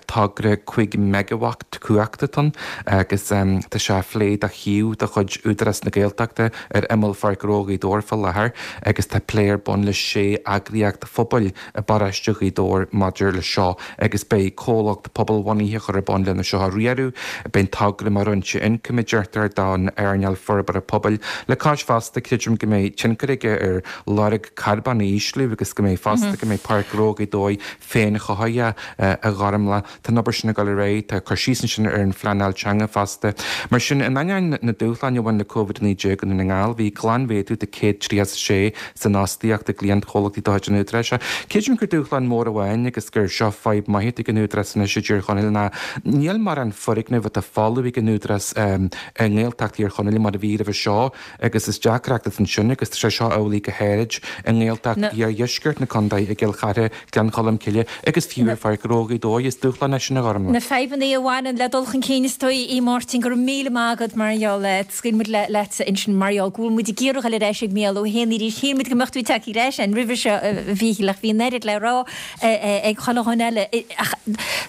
togra 5 meigeawatt cumhachta atá ann agus tá sé á phlé do. shuíomh de chuid Údarás na Gaeltachta ar imeall Pháirc Ghnó Ghaoth Dobhair fá láthair agus tá plé ar bun le sé eagraíocht phobail i bparóiste Ghaoth Dobhair maidir le seo agus beidh comhlacht pobalbhunaithe á chur ar bun lena seo a riaradh. Beidh an togra mar fhoinse ioncaim, a deirtear, don earnáil forbartha pobail. Le cois fosta, creidim go mbeidh tionchar aige ar lorg carbóin a ísliú agus go mbeidh fosta go mbeidh Páirc Ghnó Ghaoth Dobhair féinchothaithe, a Ghormlaith. Tá an obair sin ag dul ar aghaidh. Tá cur síos ansin ar an phleanáil teanga fosta. Mar sin, in ainneoin na dúshláin a bhain le Covid-19 i nDún na nGall, bhí glanmhéadú de 136 san fhostaíocht i gcliantchomhlachtaí de chuid an Údaráis. Creidim gur dúshlán mór amháin agus gur seo fadhb maith atá ag an Údarás anois i dTír Chonaill ná níl mórán foirgneamh atá folamh ag an Údarás i nGaeltacht Thír Chonaill mar a bhí roimhe seo agus is deacracht atá ansin agus tá sé seo amhlaidh go háirid i nGaeltacht iardheisceart na contae, i gCill Chartha, Gleann Cholm Cille agus fiú ar Pháirc Ghnó Ghaoth Dobhair. Is dúshlán é sin a Ghormlaith. Na fadhbanna a bhaineann le dul chun cinn is dóigh, a Mháirtín, go raibh míle maith agat mar gheall air. Scaoil muid leatsa ansin mar gheall go bhfuil muid ag iarraidh dul ar ais ag Mícheál Ó hÉanaí arís. Shíl muid go mbeadh tú ag teacht ar ais againn roimhe seo, a Mhíchíl, ach bhí an oiread le rá ag chuile dhuine eile. Ach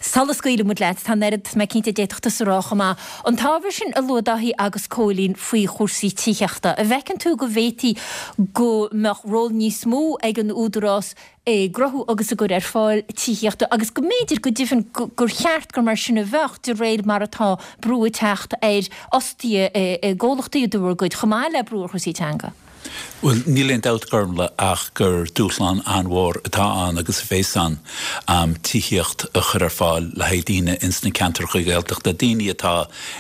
sula scaoilfidh muid leat, tá an oiread, tá mé cinnte, a d'fhéadfadh tusa a rá chomh maith. An t-ábhar sin a luaigh Dáithí agus Cóilín faoi chúrsaí tithíochta, an bhfeiceann tú go bhféadfaí go mbeadh ról níos mó ag an Údarás i gcruthú agus i gcur ar fáil tithíochta agus go mb'fhéidir go deimhin gur cheart gur mar sin a bheadh de réir mar atá brú ag teacht ar fhostaithe i gcomhlachtaí de bhur gcuid, chomh maith le brú ar chúrsaí teanga. Bhuel, níl aon dabht, Gormlaith, ach gur dúshlán an-mhór atá ann agus a bhéas ann tithíocht a chur ar fáil le haghaidh daoine ins na ceantracha Gaeltachta, daoine atá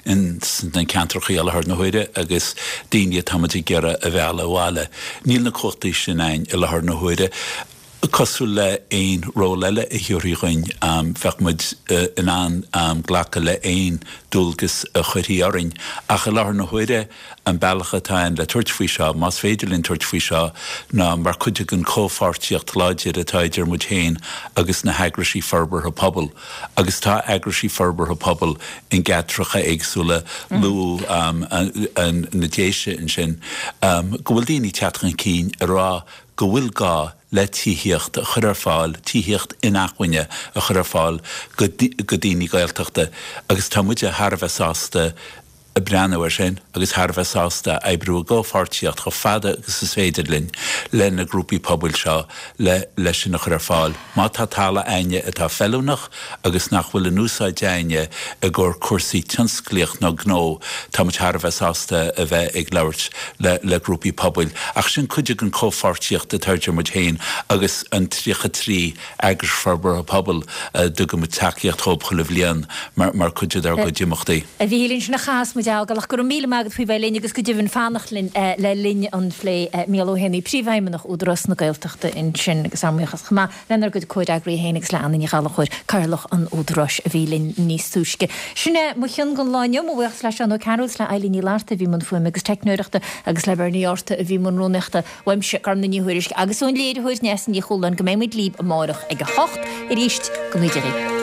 ins na ceantracha i láthair na huaire agus daoine atá muid ag iarraidh a mhealladh abhaile. Níl na cumhachtaí sin a'inn i láthair na huaire. Cosúil le aon ról eile a thabharfaí dhuinn, bheadh muid in ann glacadh le aon dualgas a chuirfí orainn. Ach i láthair na huaire, an bealach atá ann le tabhairt faoi seo, más féidir linn tabhairt faoi seo, ná mar chuid den chomhpháirtíocht láidir atá idir muid féin agus na heagraisí forbartha pobail. Agus tá eagraisí forbartha pobail in gceantracha éagsúla, luadh na Déise ansin, go bhfuil daoine ag teacht chun cinn ag rá go bhfuil gá le tithíocht a chur ar fáil, tithíocht inacmhainne a chur ar fáil go daoine Gaeltachta agus tá muide thar a bheith sásta breathnú air sin agus thar a bheith sásta oibriú i gcomhpháirtíocht chomh fada agus is féidir linn le na grúpaí pobail seo le leis sin a chur ar fáil. Má tá talamh a'inne atá feiliúnach agus nach bhfuil in úsáid a'inne i gcomhair cúrsaí tionsclaíocht nó gnó, tá muid thar a bheith sásta a bheith ag labhairt le le grúpaí pobail. Ach sin cuid den chomhpháirtíocht atá idir muid féin agus an 33 eagras forbartha pobail a dtugann muid tacaíocht dhóibh chuile bhliain mar mar chuid dár gcuid imeachtaí. A Mhíchíl, ansin a chaithfeas muid a fhágáil ach go raibh míle maith agat faoi bheith linn agus go deimhin fanacht linn le linn an phlé. Mícheál Ó hÉanaí, Príomhfheidhmeannach Údarás na Gaeltachta ansin agus ár mbuíochas chomh maith lenár gcuid comhfhreagraí féin agus le Anna Ní Ghallchóir, Cathaoirleach an Údaráis a bhí linn níos túisce. Sin é mo chion don lá inniu. Mo bhuíochas le Seán Ó Cearúil is le Eilín Ní Fhlatharta a bhí i mbun fuaime agus teicneoireachta agus le Bernie Arta a bhí i mbun rúnaíochta. Uaimse, Gormlaith Ní Thuairisg, agus ón léiritheoir Neasa Ní Chualáin go mbeidh muid libh amárach ag a hocht arís. Go mbeidh Dia libh.